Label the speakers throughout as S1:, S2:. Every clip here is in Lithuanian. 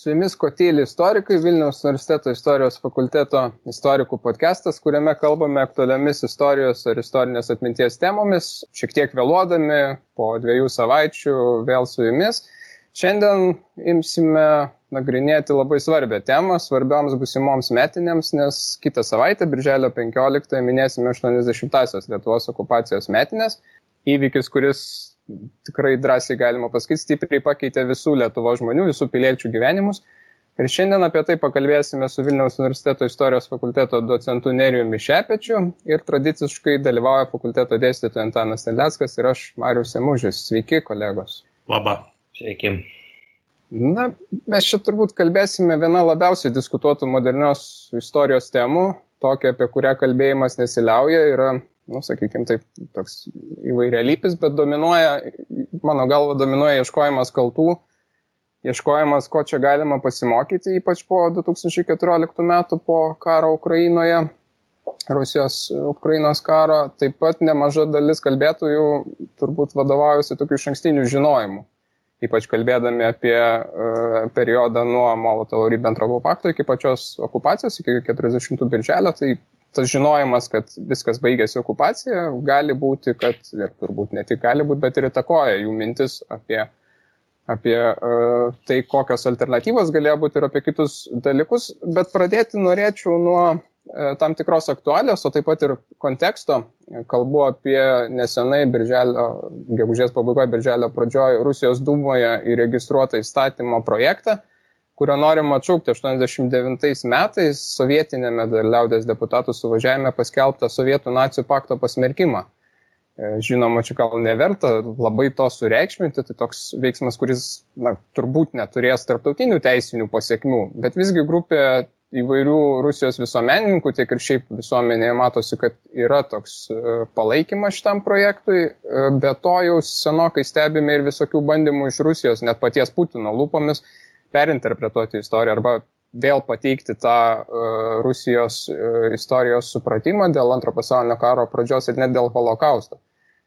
S1: Su jumis Kotyli istorikai, Vilniaus universiteto istorijos fakulteto istorikų podcastas, kuriame kalbame aktualiomis istorijos ar istorinės atminties temomis, šiek tiek vėluodami, po 2 savaičių vėl su jumis. Šiandien imsime nagrinėti labai svarbią temą, svarbioms busimoms metinėms, nes kitą savaitę, birželio 15, minėsime 80-asias Lietuvos okupacijos metinės. Įvykis, kuris tikrai drąsiai galima pasakyti, stipriai pakeitė visų Lietuvos žmonių, visų piliečių gyvenimus. Ir šiandien apie tai pakalbėsime su Vilniaus universiteto istorijos fakulteto docentu Nerijumi Šepečiu ir tradiciškai dalyvauja fakulteto dėstytojas Antanas Terleckas ir aš, Marius Emužis. Sveiki, kolegos.
S2: Labą. Sveiki.
S1: Na, mes čia turbūt kalbėsime vieną labiausiai diskutuotų modernios istorijos temų, tokia, apie kurią kalbėjimas nesiliauja, yra sakykime, taip, toks įvairialypis, bet mano galva dominuoja ieškojimas kaltų, ieškojimas, ko čia galima pasimokyti, ypač po 2014 metų, po karo Ukrainoje, Rusijos-Ukrainos karo. Taip pat nemaža dalis kalbėtojų turbūt vadovaujasi tokiu išankstiniu žinojimu, ypač kalbėdami apie periodą nuo Molotovo-Ribentropo pakto iki pačios okupacijos, iki 40 birželio, tai tas žinojimas, kad viskas baigėsi okupacija, gali būti, kad, ir turbūt ne tik gali būti, bet ir įtakoja jų mintis apie tai, kokios alternatyvos galėjo būti ir apie kitus dalykus. Bet pradėti norėčiau nuo tam tikros aktualijos, o taip pat ir konteksto. Kalbu apie nesenai gegužės pabaigoje, birželio pradžioje Rusijos Dūmoje įregistruotą įstatymo projektą, kurio norima atšaukti 89 metais sovietinėme liaudės deputatų suvažiavime paskelbtą Sovietų nacijų pakto pasmerkimą. Žinoma, čia gal neverta labai to sureikšminti, tai toks veiksmas, kuris turbūt neturės tarptautinių teisinių pasiekmių, bet visgi grupė įvairių Rusijos visuomenininkų, tiek ir šiaip visuomenėje matosi, kad yra toks palaikymas šitam projektui, be to jau senokai stebime ir visokių bandymų iš Rusijos, net paties Putino lūpomis, perinterpretuoti istoriją arba vėl pateikti tą Rusijos istorijos supratimą dėl Antro pasaulinio karo pradžios ir net dėl holokausto.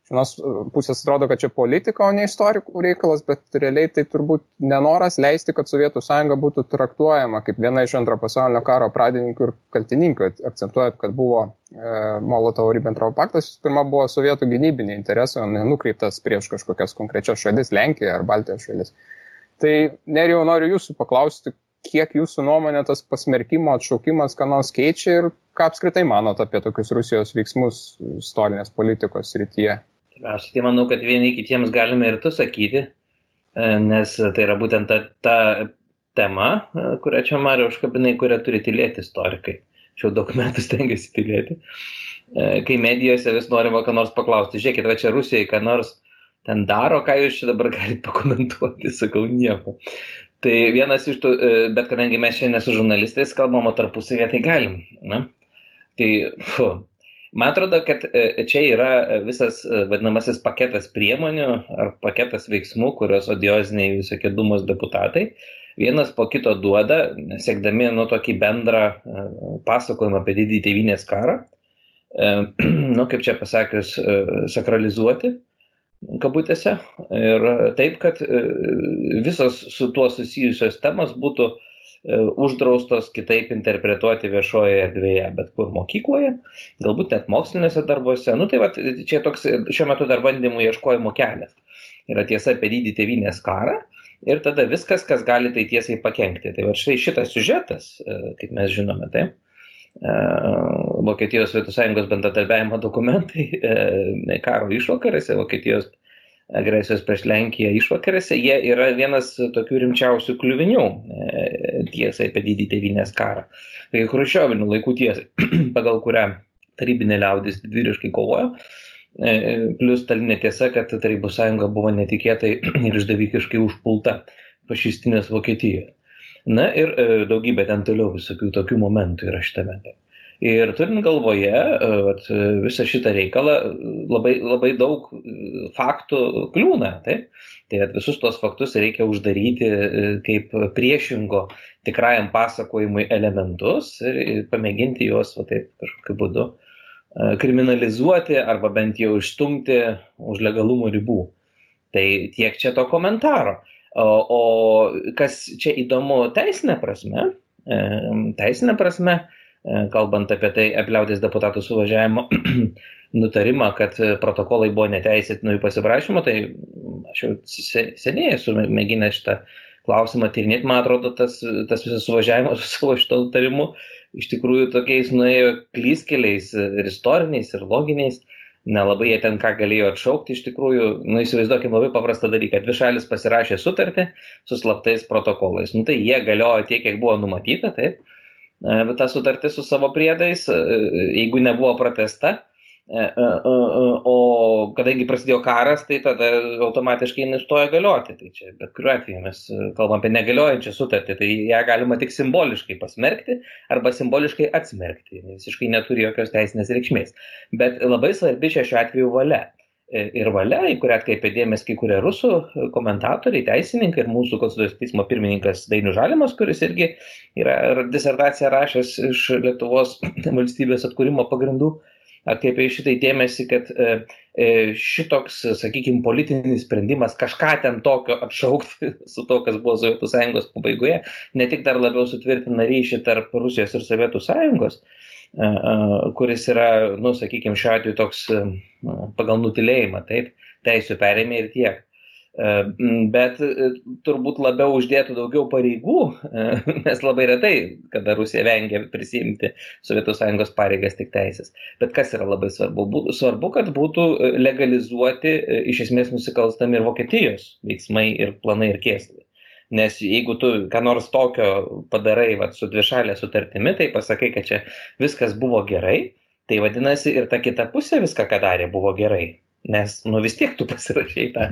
S1: Iš vienos pusės atrodo, kad čia politika, o ne istorikų reikalas, bet realiai tai turbūt nenoras leisti, kad Sovietų sąjunga būtų traktuojama kaip viena iš Antro pasaulinio karo pradininkų ir kaltininkų, akcentuojant, kad buvo Molotovo-Ribentropo paktas, pirma buvo sovietų gynybiniai interesai, o nenukreiptas prieš kažkokias konkrečias šalis, Lenkiją ar Baltijos šalis. Tai, Nerijau, noriu jūsų paklausti, kiek jūsų nuomonė tas pasmerkimo atšaukimas ką nors keičia ir ką apskritai manot apie tokius Rusijos veiksmus istorinės politikos srityje?
S2: Aš tai manau, kad vieni kitiems galime ir tu sakyti, nes tai yra būtent ta tema, kurią čia Mariau užkabinai, kurią turi tylėti istorikai. Šiau daug metų stengiasi tylėti. Kai medijose vis norima ką nors paklausti, žiūrėkit, va čia Rusijai ką nors ten daro, ką jūs čia dabar galite pakomentuoti, sakau nieko. Tai vienas iš tų, bet kadangi mes šiandien su žurnalistais kalbam, o tarpusavėje tai galim. Na? Tai, man atrodo, kad čia yra visas vadinamasis paketas priemonių ar paketas veiksmų, kurios odioziniai visokie Dūmos deputatai vienas po kito duoda, siekdami tokį bendrą pasakojimą apie didįjį tėvynės karą, kaip čia pasakius, sakralizuoti kabutėse, ir taip, kad visos su tuo susijusios temos būtų uždraustos kitaip interpretuoti viešoje erdvėje, bet kur mokykloje, galbūt net moksliniuose darbuose. Tai va, čia toks šiuo metu dar bandymų ieškojimo kelias. Yra tiesa apie didįjį tėvynės karą ir tada viskas, kas gali tai tiesiai pakenkti. Tai va štai šitas siužetas, kaip mes žinome, tai Vokietijos Sovietų Sąjungos bendradarbiavimo dokumentai karo išvakarėse, Vokietijos agresijos prieš Lenkiją išvakarėse, jie yra vienas tokių rimčiausių kliuvinių tiesai apie didįjį tėvynės karą. Tai chruščiovinių laikų tiesai, pagal kurią tarybinė liaudis didvyriškai kovojo, plus stalinė tiesa, kad Tarybų sąjunga buvo netikėtai ir išdavikiškai užpulta fašistinės Vokietijos. Na ir daugybė ten toliau visokių tokių momentų yra šitame. Ir turint galvoje visą šitą reikalą, labai daug faktų kliūna. Tai visus tos faktus reikia uždaryti kaip priešingo tikrajam pasakojimui elementus ir pamėginti juos kažkokiu būdu kriminalizuoti arba bent jau išstumti už legalumo ribų. Tai tiek čia to komentaro. O kas čia įdomu teisinė prasme, kalbant apie tai, apie liaudies deputatų suvažiavimo nutarimą, kad protokolai buvo neteisėti jų pasiprašymo, tai aš jau seniai esu mėginęs šitą klausimą tyrinėti. Man atrodo, tas visas suvažiavimas su savo šito nutarimu iš tikrųjų tokiais nuėjo klystkeliais ir istoriniais, ir loginiais. Nelabai jie ten ką galėjo atšaukti iš tikrųjų. Įsivaizduokim labai paprastą dalyką. Dvi šalis pasirašė sutartį su slaptais protokolais. Tai jie galiojo tiek, kiek buvo numatyta, taip. Bet ta sutartis su savo priedais, jeigu nebuvo pratęsta, o kadangi prasidėjo karas, tai tada automatiškai nustojo galioti. Tai čia bet kuriuo atveju mes kalbam apie negaliojančią sutartį, tai ją galima tik simboliškai pasmerkti arba simboliškai atsmerkti. Visiškai neturi jokios teisinės reikšmės. Bet labai svarbi čia šiuo atveju valia. Ir valia, į kurią atkreipė dėmesį kai kurie rusų komentatoriai, teisininkai ir mūsų Konstitucinio teismo pirmininkas Dainius Žalimas, kuris irgi yra disertaciją rašęs iš Lietuvos valstybės atkūrimo pagrindų, atkreipė šitai dėmesį, kad šitoks, sakykime, politinis sprendimas kažką ten tokio atšaukti su to, kas buvo Sovietų Sąjungos pabaigoje, ne tik dar labiau sutvirtina ryšį tarp Rusijos ir Sovietų Sąjungos, kuris yra, sakykime, šiuo atveju toks pagal nutilėjimą, taip, teisių perėmė ir tiek. Bet turbūt labiau uždėtų daugiau pareigų, nes labai retai, kada Rusija vengia prisiimti Sovietų Sąjungos pareigas tik teisės. Bet kas yra labai svarbu? Svarbu, kad būtų legalizuoti iš esmės nusikalstami ir Vokietijos veiksmai ir planai ir kėslai. Nes jeigu tu ką nors tokio padarai su dvišalė sutartimi, tai pasakai, kad čia viskas buvo gerai, tai vadinasi ir ta kita pusė viską, ką darė, buvo gerai. Nes vis tiek tu pasirašai tą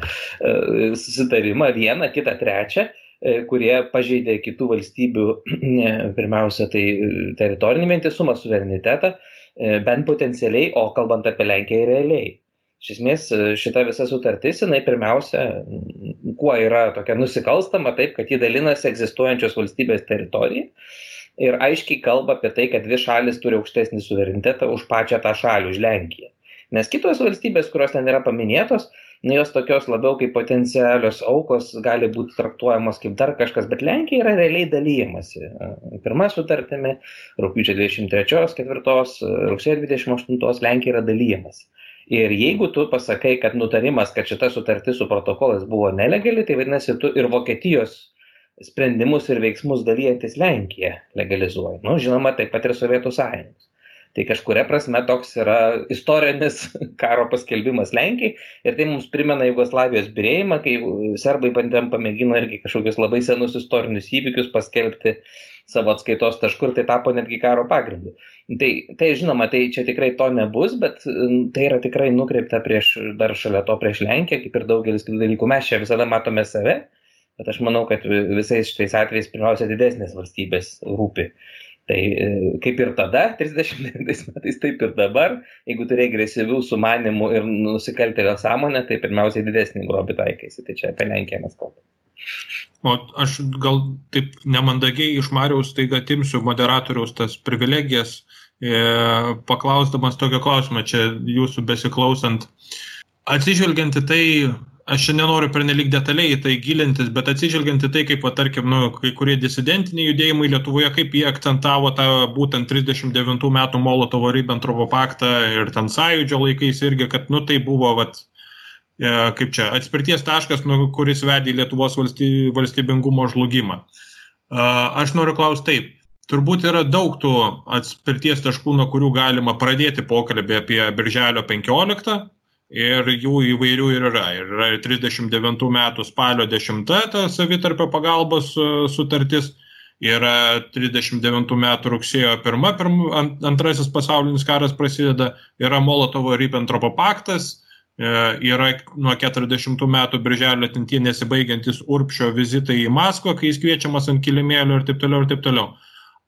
S2: susitarimą, vieną, kitą, trečią, kurie pažeidė kitų valstybių, pirmiausia, tai teritorinį vientisumą, suverenitetą, bent potencialiai, o kalbant apie Lenkiją realiai. Iš esmės, šita visa sutartis, jinai pirmiausia, kuo yra tokia nusikalstama, taip, kad ji dalinasi egzistuojančios valstybės teritoriją ir aiškiai kalba apie tai, kad dvi šalis turi aukštesnį suverenitetą už pačią tą šalį, už Lenkiją. Nes kitos valstybės, kurios ten yra paminėtos, jos tokios labiau kaip potencialios aukos gali būti traktuojamos kaip dar kažkas, bet Lenkija yra realiai dalyjamasi. Pirma sutartimi, rugpjūčio 23, 4, rugsėjo 28 Lenkija yra dalyjamasi. Ir jeigu tu pasakai, kad nutarimas, kad šita sutartis su protokolas buvo nelegali, tai vadinasi, tu ir Vokietijos sprendimus ir veiksmus dalyjantis Lenkiją legalizuoji. Žinoma, taip pat ir Sovietų Sąjungos. Tai kažkuria prasme toks yra istorinis karo paskelbimas Lenkijai ir tai mums primena Jugoslavijos byrėjimą, kai serbai pamėgino irgi kažkokius labai senus istorinius įvykius paskelbti savo atskaitos tašku ir tai tapo netgi karo pagrindu. Tai žinoma, tai čia tikrai to nebus, bet tai yra tikrai nukreipta dar šalia to prieš Lenkiją, kaip ir daugelis kitų dalykų. Mes čia visada matome save, bet aš manau, kad visais šitais atvejais pirmiausia didesnės valstybės rūpi. Tai kaip ir tada, 39 metais, taip ir dabar, jeigu turi agresyvių sumanimų ir nusikaltėlio sąmonę, tai pirmiausiai didesnį grobį taikaisi. Tai čia apie Lenkiją mes kalbame.
S3: O aš gal taip nemandagiai iš Mariaus taiga atimsiu moderatoriaus tas privilegijas, paklausdamas tokio klausimą, čia jūsų besiklausant. Atsižvelgiant į tai, aš čia nenoriu pernelyg detaliai į tai gilintis, bet atsižvelgiant į tai, kaip, tarkim, kai kurie disidentiniai judėjimai Lietuvoje, kaip jie akcentavo tą būtent 39 metų Molotovo-Ribentropo paktą ir ten sąjūdžio laikais irgi, kad, tai buvo, kaip čia, atspirties taškas, kuris vedė Lietuvos valstybingumo žlugimą. Aš noriu klausti taip. Turbūt yra daug tų atspirties taškų, nuo kurių galima pradėti pokalbį apie Birželio 15 ir jų įvairių ir yra. Yra 39 metų spalio 10 ta savitarpio pagalbos sutartis, yra 39 metų rugsėjo 1, antrasis pasaulinis karas prasideda, yra Molotovo-Ribentropo paktas, yra nuo 40 metų birželio tintie nesibaigiantis Urbšio vizitai į Maskvą, kai jis kviečiamas ant kilimėlio ir taip toliau ir taip toliau.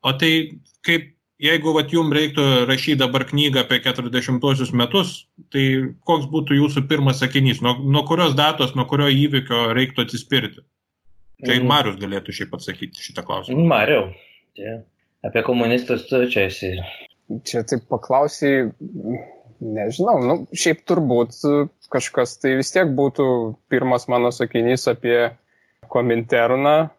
S3: O tai kaip, jeigu jums reiktų rašyti dabar knygą apie 40-osius metus, tai koks būtų jūsų pirmas sakinys? Nuo kurios datos, nuo kurio įvykio reiktų atsispirti? Tai Marius galėtų šiaip atsakyti šitą klausimą.
S2: Mariau, apie komunistus tu čia esi.
S1: Čia taip paklausiai, nežinau, šiaip turbūt kažkas tai vis tiek būtų pirmas mano sakinys apie Kominterną,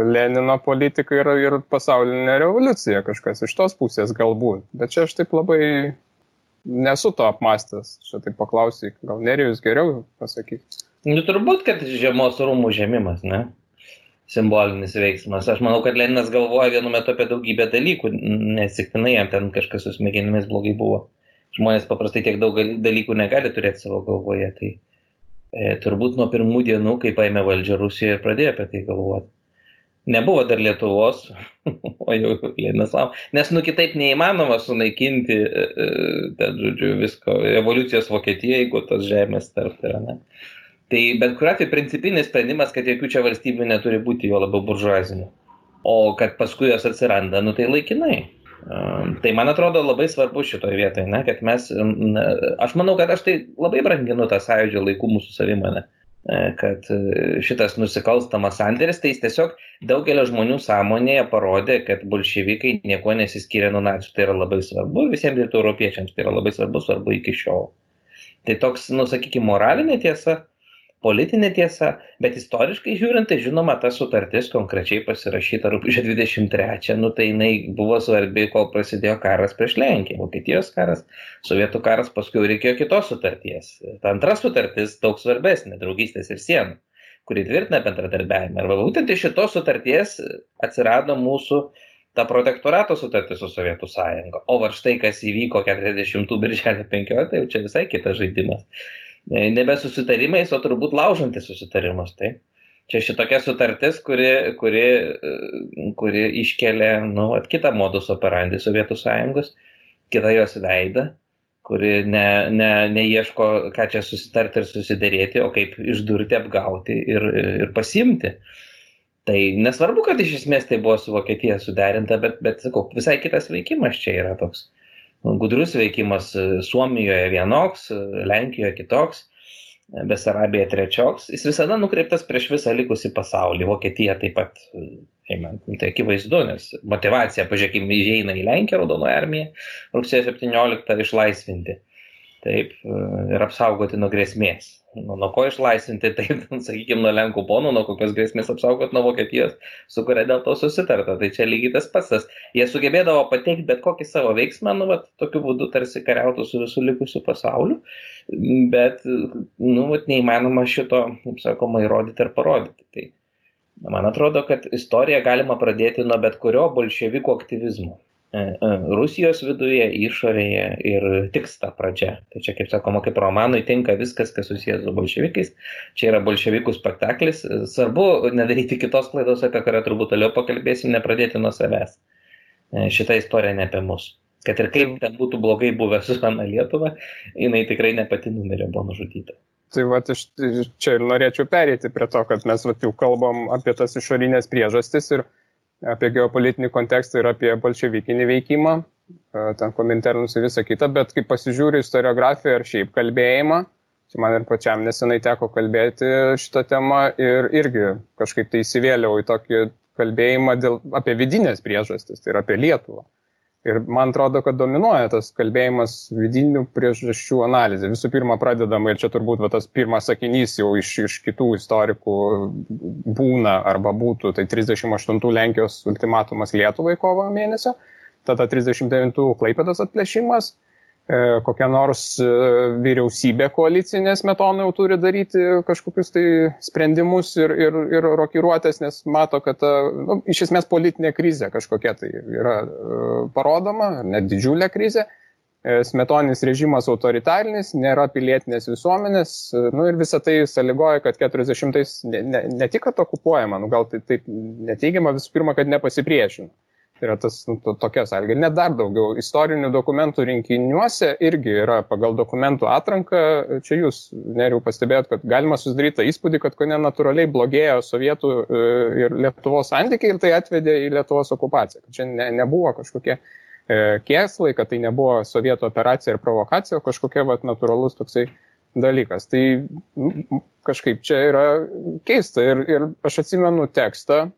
S1: Lenino politiką ir pasaulinę revoliuciją, kažkas iš tos pusės galbūt. Bet čia aš taip labai nesu to apmastęs. Čia taip paklausyk, gal Nerijus geriau pasakyti.
S2: Nu, turbūt, kad žiemos rūmų žemimas, ne? Simbolinis veiksmas. Aš manau, kad Leninas galvoja vienu metu apie daugybę dalykų, nesiktinai jam ten kažkas su smegenimis blogai buvo. Žmonės paprastai tiek daug dalykų negali turėti savo galvoje. Tai turbūt nuo pirmų dienų, kai paėmė valdžią Rusijoje, pradėjo apie tai galvoti. Nebuvo dar Lietuvos, o jau Leninas laukia. Nes kitaip neįmanoma sunaikinti, ten, žodžiu, visko, revoliucijos Vokietija, jeigu tos žemės tarp yra, ne? Tai bet kuriuo atveju principinis sprendimas, kad jokių čia valstybių neturi būti, jo labiau buržuazinių. O kad paskui jos atsiranda, tai laikinai. Tai man atrodo labai svarbu šitoje vietoje, ne, kad mes, aš manau, kad aš tai labai branginu tą sąjūdžio laikų mūsų savimonę, kad šitas nusikalstamas sandėris, tai jis tiesiog daugelio žmonių sąmonėje parodė, kad bolševikai nieko nesiskiria nuo nacių. Tai yra labai svarbu, visiems rytų europiečiams tai yra labai svarbu iki šiol. Tai toks, sakykime, moralinė tiesa, politinė tiesa, bet istoriškai žiūrint, tai žinoma, ta sutartis konkrečiai pasirašyta rugpjūčio 23, tai jinai buvo svarbi, kol prasidėjo karas prieš Lenkiją, Vokietijos karas, Sovietų karas, paskui reikėjo kitos sutarties. Ta antra sutartis daug svarbesnė, draugystės ir sienų, kuri tvirtina bendradarbiavimą. Ir būtent iš šitos sutarties atsirado mūsų ta protektorato sutartis su Sovietų sąjunga. O va štai, kas įvyko 40 birželio 15, tai jau čia visai kitas žaidimas. Nebe susitarimais, o turbūt laužantis susitarimus. Tai čia šitokia sutartis, kuri iškelia kitą modus operandi Sovietų sąjungos, kitą jos veidą, kuri neieško, ką čia susitarti ir susiderėti, o kaip išdurti, apgauti ir pasimti. Tai nesvarbu, kad iš esmės tai buvo su Vokietija suderinta, bet sakau, visai kitas veikimas čia yra toks. Gudrus veikimas Suomijoje vienoks, Lenkijoje kitoks, Besarabija trečioks. Jis visada nukreiptas prieš visą likusį pasaulį. Vokietija taip pat, tai akivaizdu, nes motivacija, pažiūrėkime, įeina į Lenkiją, Raudonoji armija, rugsėjo 17 išlaisvinti. Taip, ir apsaugoti nuo grėsmės. Nuo ko išlaisvinti, taip, sakykime, nuo Lenkų ponų, nuo kokios grėsmės apsaugoti nuo Vokietijos, su kuria dėl to susitarta. Tai čia lygiai tas pats. Jie sugebėdavo pateikti bet kokį savo veiksmą, tokiu būdu tarsi kariautų su visų likusiu pasauliu, bet, neįmanoma šito, kaip sakoma, įrodyti ir parodyti. Tai man atrodo, kad istoriją galima pradėti nuo bet kurio bolševikų aktyvizmo. Rusijos viduje, išorėje ir tiks ta pradžia. Tai čia, kaip sakoma, kaip romanui tinka viskas, kas susijęs su bolševikais. Čia yra bolševikų spektaklis. Svarbu nedaryti kitos klaidos, apie kurią turbūt toliau pakalbėsim, nepradėti nuo savęs. Šita istorija ne apie mus. Kad ir kaip ten būtų blogai buvę su Ana Lietuva, jinai tikrai ne pati numirė, buvo nužudyta.
S1: Tai va, čia ir norėčiau pereiti prie to, kad mes jau kalbam apie tas išorinės priežastis ir apie geopolitinį kontekstą ir apie bolševikinį veikimą, ten Kominternus ir visą kitą, bet kai pasižiūriu istoriografiją ar šiaip kalbėjimą, čia man ir pačiam nesenai teko kalbėti šitą temą ir irgi kažkaip tai įsivėliau į tokį kalbėjimą apie vidinės priežastis, tai yra apie Lietuvą. Ir man atrodo, kad dominuoja tas kalbėjimas vidinių priežasčių analizė. Visų pirma, pradedama, ir čia turbūt tas pirmas sakinys jau iš kitų istorikų būna arba būtų, tai 38 Lenkijos ultimatumas Lietuvai kovo mėnesio, tada 39 Klaipėdos atplėšimas, kokia nors vyriausybė koalicinė Smetona jau turi daryti kažkokius tai sprendimus ir rokiruotės, nes mato, kad iš esmės politinė krizė kažkokia tai yra parodoma, net didžiulė krizė. Smetoninis režimas autoritarinis, nėra pilietinės visuomenės, ir visą tai sąlygoja, kad 40-ais ne tik kad okupuojama, gal tai taip neteigiama, visų pirma, kad nepasipriešino. Tai yra tas tokia sąlyga. Net dar daugiau istorinių dokumentų rinkiniuose irgi yra pagal dokumentų atranką. Čia jūs, Nerijau, pastebėjot, kad galima susidaryti tą įspūdį, kad natūraliai blogėjo Sovietų ir Lietuvos santykiai ir tai atvedė į Lietuvos okupaciją. Kad čia nebuvo kažkokie kėslai, kad tai nebuvo Sovietų operacija ir provokacija, o kažkokia natūralus toksai dalykas. Tai kažkaip čia yra keista. Ir aš atsimenu tekstą,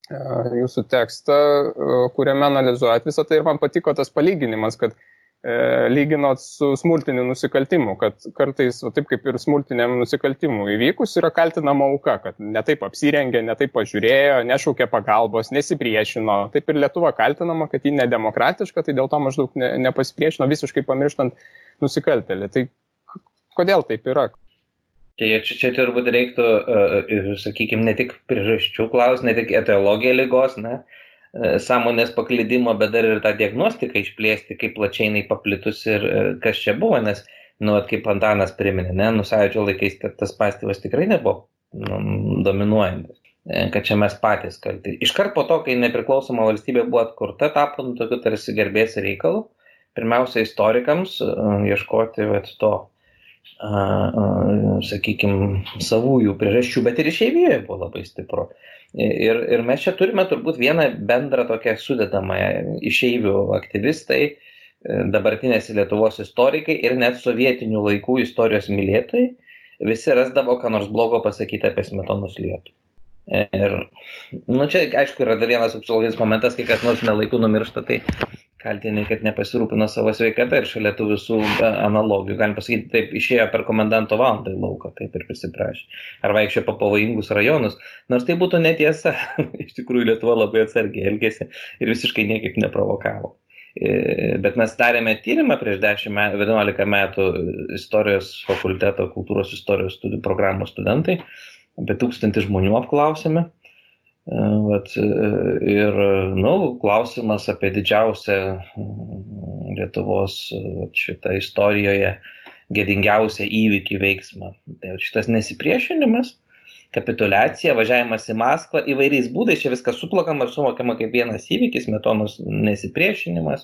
S1: jūsų tekstą, kuriame analizuojat visą tai ir man patiko tas palyginimas, kad lyginot su smurtiniu nusikaltimu, kad kartais, taip kaip ir smurtiniam nusikaltimu įvykus, yra kaltinama auka, kad netaip apsirengė, netaip pažiūrėjo, nešaukė pagalbos, nesipriešino. Taip ir Lietuva kaltinama, kad ji nedemokratiška, tai dėl to maždaug nepasipriešino, visiškai pamirštant nusikaltėlį. Tai kodėl taip yra?
S2: Čia turbūt reiktų, sakykime, ne tik priežasčių klausti, ne tik etiologiją ligos, sąmonės paklydimo, bet dar ir tą diagnostiką išplėsti, kaip plačiai jinai paplitus ir kas čia buvo, nes, kaip Antanas priminė, Sąjūdžio laikais tas pastyvas tikrai nebuvo dominuojantis, kad čia mes patys kalti. Iškart po to, kai nepriklausoma valstybė buvo atkurta, tapo tokiu tarsi garbės reikalų, pirmiausia istorikams ieškoti to, sakykime, savųjų priežasčių, bet ir išeivijoje buvo labai stipru. Ir mes čia turime turbūt vieną bendrą tokią sudedamąją išeivių aktyvistai, dabartinės Lietuvos istorikai ir net sovietinių laikų istorijos mylėtojai, visi rasdavo, ką nors blogo pasakyti apie Smetonos Lietuvą. Ir, čia, aišku, yra dar vienas psichologinis momentas, kai kas nors nelaiku numiršta, tai kaltini, kad nepasirūpino savo sveikatą ir šalia tų visų analogijų. Galim pasakyti, taip išėjo per komendanto valandą į lauką, taip ir prisiprašė. Ar vaikščiojo po pavojingus rajonus. Nors tai būtų netiesa. Iš tikrųjų, Lietuva labai atsargiai elgėsi ir visiškai niekaip neprovokavo. Bet mes darėme tyrimą prieš 11 metų istorijos fakulteto, kultūros istorijos studijų programos studentai. Apie 1000 žmonių apklausėme. Ir klausimas apie didžiausią Lietuvos šitą istorijoje gėdingiausią įvykį veiksmą. Tai šitas nesipriešinimas, kapituliacija, važiavimas į Maskvą įvairiais būdais, čia viskas suplakama ir suvokiama kaip vienas įvykis, Smetonos nesipriešinimas,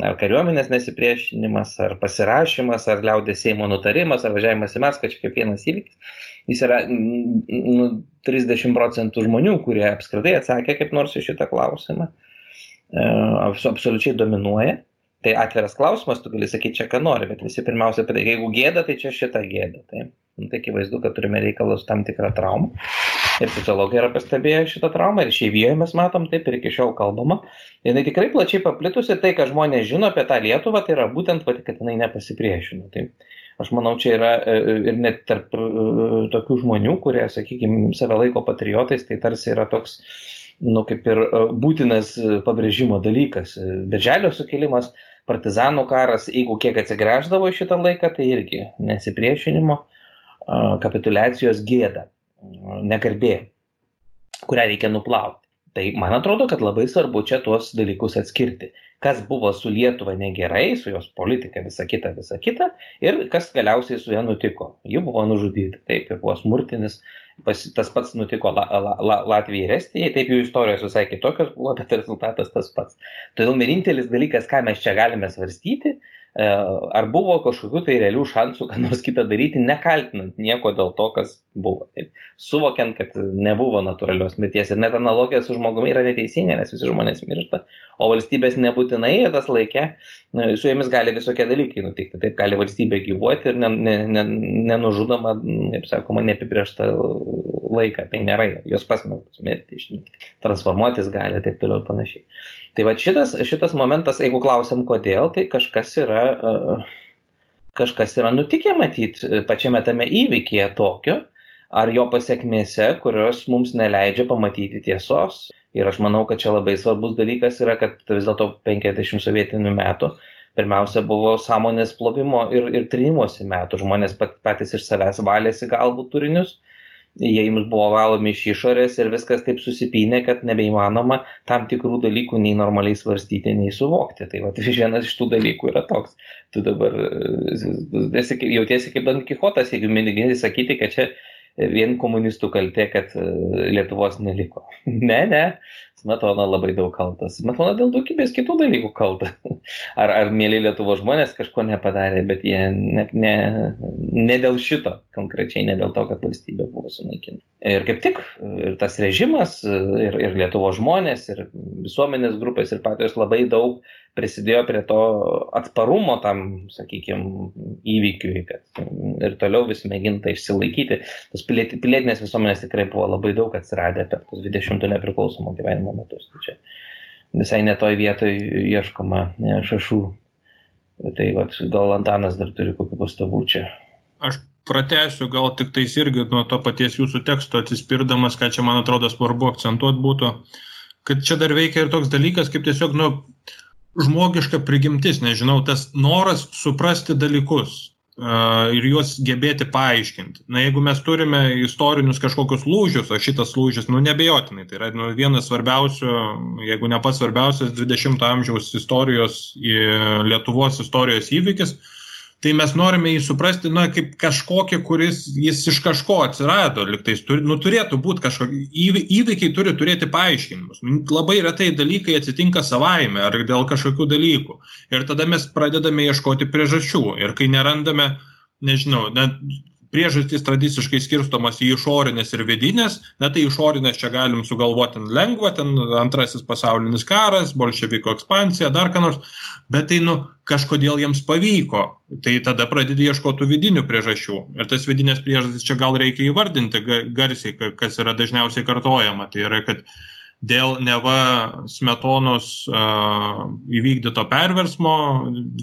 S2: ar kariuomenės nesipriešinimas, ar pasirašymas, ar liaudės Seimo nutarimas, ar važiavimas į Maskvą, čia kaip vienas įvykis. Jis yra 30% žmonių, kurie apskritai atsakė kaip nors į šitą klausimą. Absoliučiai dominuoja. Tai atviras klausimas, tu gali sakyti čia, ką nori, bet visi pirmiausia, jeigu gėda, tai čia šitą gėdą. Tai akivaizdu, kad turime reikalus tam tikrą traumą. Ir sociologai yra pastebėję šitą traumą, ir išeivijoje mes matom taip, ir iki šiol kalbama. Jinai tikrai plačiai paplitusi, tai, ką žmonės žino apie tą Lietuvą, tai yra būtent, kad jinai nepasipriešino. Tai aš manau, čia yra ir net tarp tokių žmonių, kurie, sakykime, save laiko patriotais, tai tarsi yra toks, kaip ir būtinas pabrėžimo dalykas. Birželio sukilimas, partizanų karas, jeigu kiek atsigręždavo šitą laiką, tai irgi nesipriešinimo, kapituliacijos gėda, negarbė, kurią reikia nuplauti. Tai man atrodo, kad labai svarbu čia tuos dalykus atskirti. Kas buvo su Lietuva negerai, su jos politika, visa kita, ir kas galiausiai su ja nutiko. Ji buvo nužudyta, taip, ir buvo smurtinis, tas pats nutiko Latvijai ir Estijai, taip jų istorijos visai kitokios buvo, bet rezultatas tas pats. Todėl vienintelis dalykas, ką mes čia galime svarstyti, ar buvo kažkokių tai realių šansų, ką nors kitą daryti, nekaltinant nieko dėl to, kas buvo. Taip. Suvokiant, kad nebuvo natūralios mirties. Ir net analogija su žmogumi yra neteisinga, nes visi žmonės miršta, o valstybės nebūtinai tas laikė, su jomis gali visokie dalykai nutikti. Taip gali valstybė gyvuoti ir nenužudoma, kaip sakoma, neapibrėžta laiką. Tai nėra, jos pasmelktos mirti, transformuotis gali, taip toliau ir panašiai. Tai va šitas momentas, jeigu klausim kodėl, tai kažkas yra nutikę matyti pačiame tame įvykyje tokio, ar jo pasiekmėse, kurios mums neleidžia pamatyti tiesos. Ir aš manau, kad čia labai svarbus dalykas yra, kad vis dėlto 50 sovietinių metų pirmiausia buvo sąmonės plovimo ir trinimosi metų. Žmonės patys iš savęs valėsi galbūt turinius. Jie jums buvo valomi iš išorės ir viskas taip susipynė, kad nebeįmanoma tam tikrų dalykų nei normaliai svarstyti, nei suvokti. Tai vienas iš tų dalykų yra toks. Tu dabar jautiesi kaip Don Kichotas, jeigu mėgini sakyti, kad čia vien komunistų kaltė, kad Lietuvos neliko. Ne, Smetona labai daug kaltas. Smetona dėl daugybės kitų dalykų kalta. Ar mėly Lietuvos žmonės kažko nepadarė, bet jie ne dėl šito, konkrečiai ne dėl to, kad valstybė buvo sunaikinta. Ir kaip tik, ir tas režimas, ir Lietuvos žmonės, ir visuomenės grupės, ir patys labai daug prisidėjo prie to atsparumo tam, sakykime, įvykiui, kad ir toliau vis mėginta išsilaikyti. Tos pilietinės visuomenės tikrai buvo labai daug atsiradę per tos 20 nepriklausomo gyvenimo metus. Tai čia visai netoj vietoj ieškoma šašų Tai gal Antanas dar turi kokių pastabų čia.
S3: Aš pratęsiu gal tik tais irgi nuo to paties jūsų teksto atsispirdamas, ką čia, man atrodo, svarbu akcentuoti būtų, kad čia dar veikia ir toks dalykas, kaip tiesiog, žmogiška prigimtis, nežinau, tas noras suprasti dalykus ir juos gebėti paaiškinti. Jeigu mes turime istorinius kažkokius lūžius, o šitas lūžis, nebejotinai, tai yra vienas svarbiausių, jeigu ne pats svarbiausias 20 amžiaus istorijos, Lietuvos istorijos įvykis, tai mes norime jį suprasti, kaip kažkokį, kuris jis iš kažko atsirado, liktais turėtų būti kažkokie įvykiai, turi turėti paaiškinimus. Labai retai dalykai atsitinka savaime ar dėl kažkokių dalykų. Ir tada mes pradedame ieškoti priežasčių. Ir kai nerandame, nežinau, priežastys tradiciškai skirstomos į išorinės ir vidinės, tai išorinės čia galim sugalvoti lengva, antrasis pasaulinis karas, bolševiko ekspansija, dar ką nors, bet tai kažkodėl jiems pavyko, tai tada pradedi ieškoti vidinių priežasčių. Ir tas vidinės priežastys čia gal reikia įvardinti garsiai, kas yra dažniausiai kartojama, tai yra, kad dėl neva Smetonos įvykdyto perversmo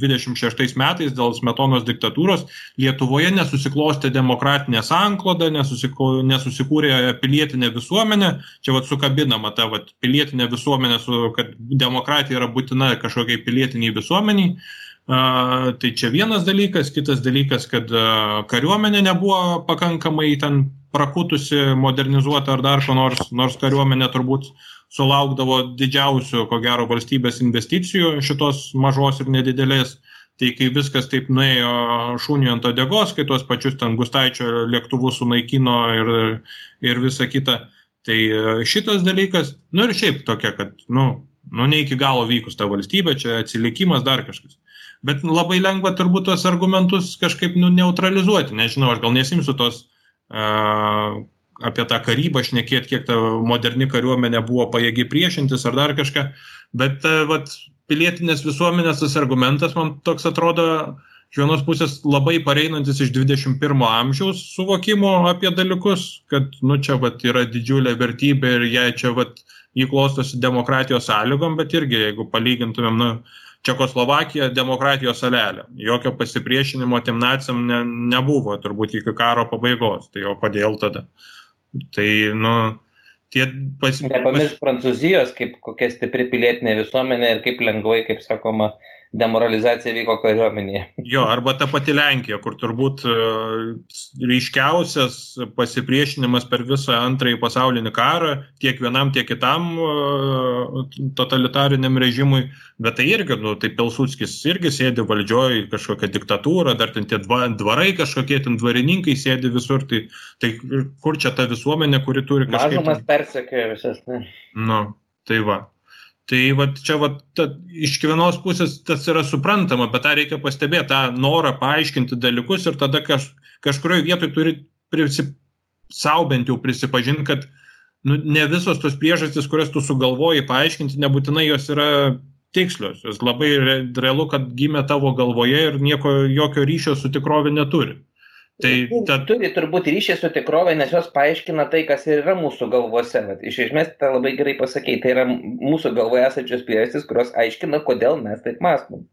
S3: 26 metais, dėl Smetonos diktatūros, Lietuvoje nesusiklostė demokratinė sankloda, nesusikūrė pilietinė visuomenė. Čia sukabinama ta pilietinė visuomenė, kad demokratija yra būtina kažkokiai pilietiniai visuomeniai. Tai čia vienas dalykas, kitas dalykas, kad kariuomenė nebuvo pakankamai ten prakutusi, modernizuota ar dar ko nors kariuomenė turbūt sulaukdavo didžiausių, ko gero, valstybės investicijų šitos mažos ir nedidelės. Tai kai viskas taip nuėjo šuniui ant uodegos, kai tuos pačius ten Gustaičio lėktuvus sunaikino ir visa kita, tai šitas dalykas, ir šiaip tokia, kad, ne iki galo vykus ta valstybė, čia atsilikimas, dar kažkas. Bet labai lengva turbūt tos argumentus kažkaip neutralizuoti, nežinau, aš gal nesimsiu tos apie tą karybą šnekėti, kiek ta moderni kariuomenė buvo pajėgi priešintis ar dar kažką, bet pilietinės visuomenės tas argumentas man toks atrodo iš vienos pusės labai pareinantis iš 21 amžiaus suvokimo apie dalykus, kad čia yra didžiulė vertybė ir jai čia jį klostosi demokratijos sąlygom, bet irgi jeigu palygintumėm, Čekoslovakija demokratijos salelė. Jokio pasipriešinimo tiem naciam nebuvo, turbūt iki karo pabaigos. Tai o kodėl tada? Tai,
S2: Nepamiršk Prancūzijos, kaip kokia stipri pilietinė visuomenė ir kaip lengvai, kaip sakoma, demoralizacija vyko kariuomenėje.
S3: Jo, arba ta pati Lenkija, kur turbūt ryškiausias pasipriešinimas per visą antrąjį pasaulinį karą, tiek vienam, tiek kitam totalitariniam režimui, bet tai irgi, tai Pilsudskis irgi sėdi valdžioje, kažkokia diktatūra, dar ten tie dvarai kažkokie, ten dvarininkai sėdi visur, tai kur čia ta visuomenė, kuri turi kažkaip...
S2: Mažumas persekioja visas, ne?
S3: Tai va. Tai čia iš vienos pusės tas yra suprantama, bet tą reikia pastebėti, tą norą paaiškinti dalykus ir tada kažkurioje vietoje turi sau bent jau prisipažinti, kad ne visos tos priežastys, kurias tu sugalvoji paaiškinti, nebūtinai jos yra tikslios. Jos labai realu, kad gimė tavo galvoje ir jokio ryšio su tikrovė neturi.
S2: Turi turbūt ryšį su tikrovė, nes jos paaiškina tai, kas ir yra mūsų galvose. Iš esmės, tai labai gerai pasakei, tai yra mūsų galvoje esančios priežastys, kurios aiškina, kodėl mes taip mąstom.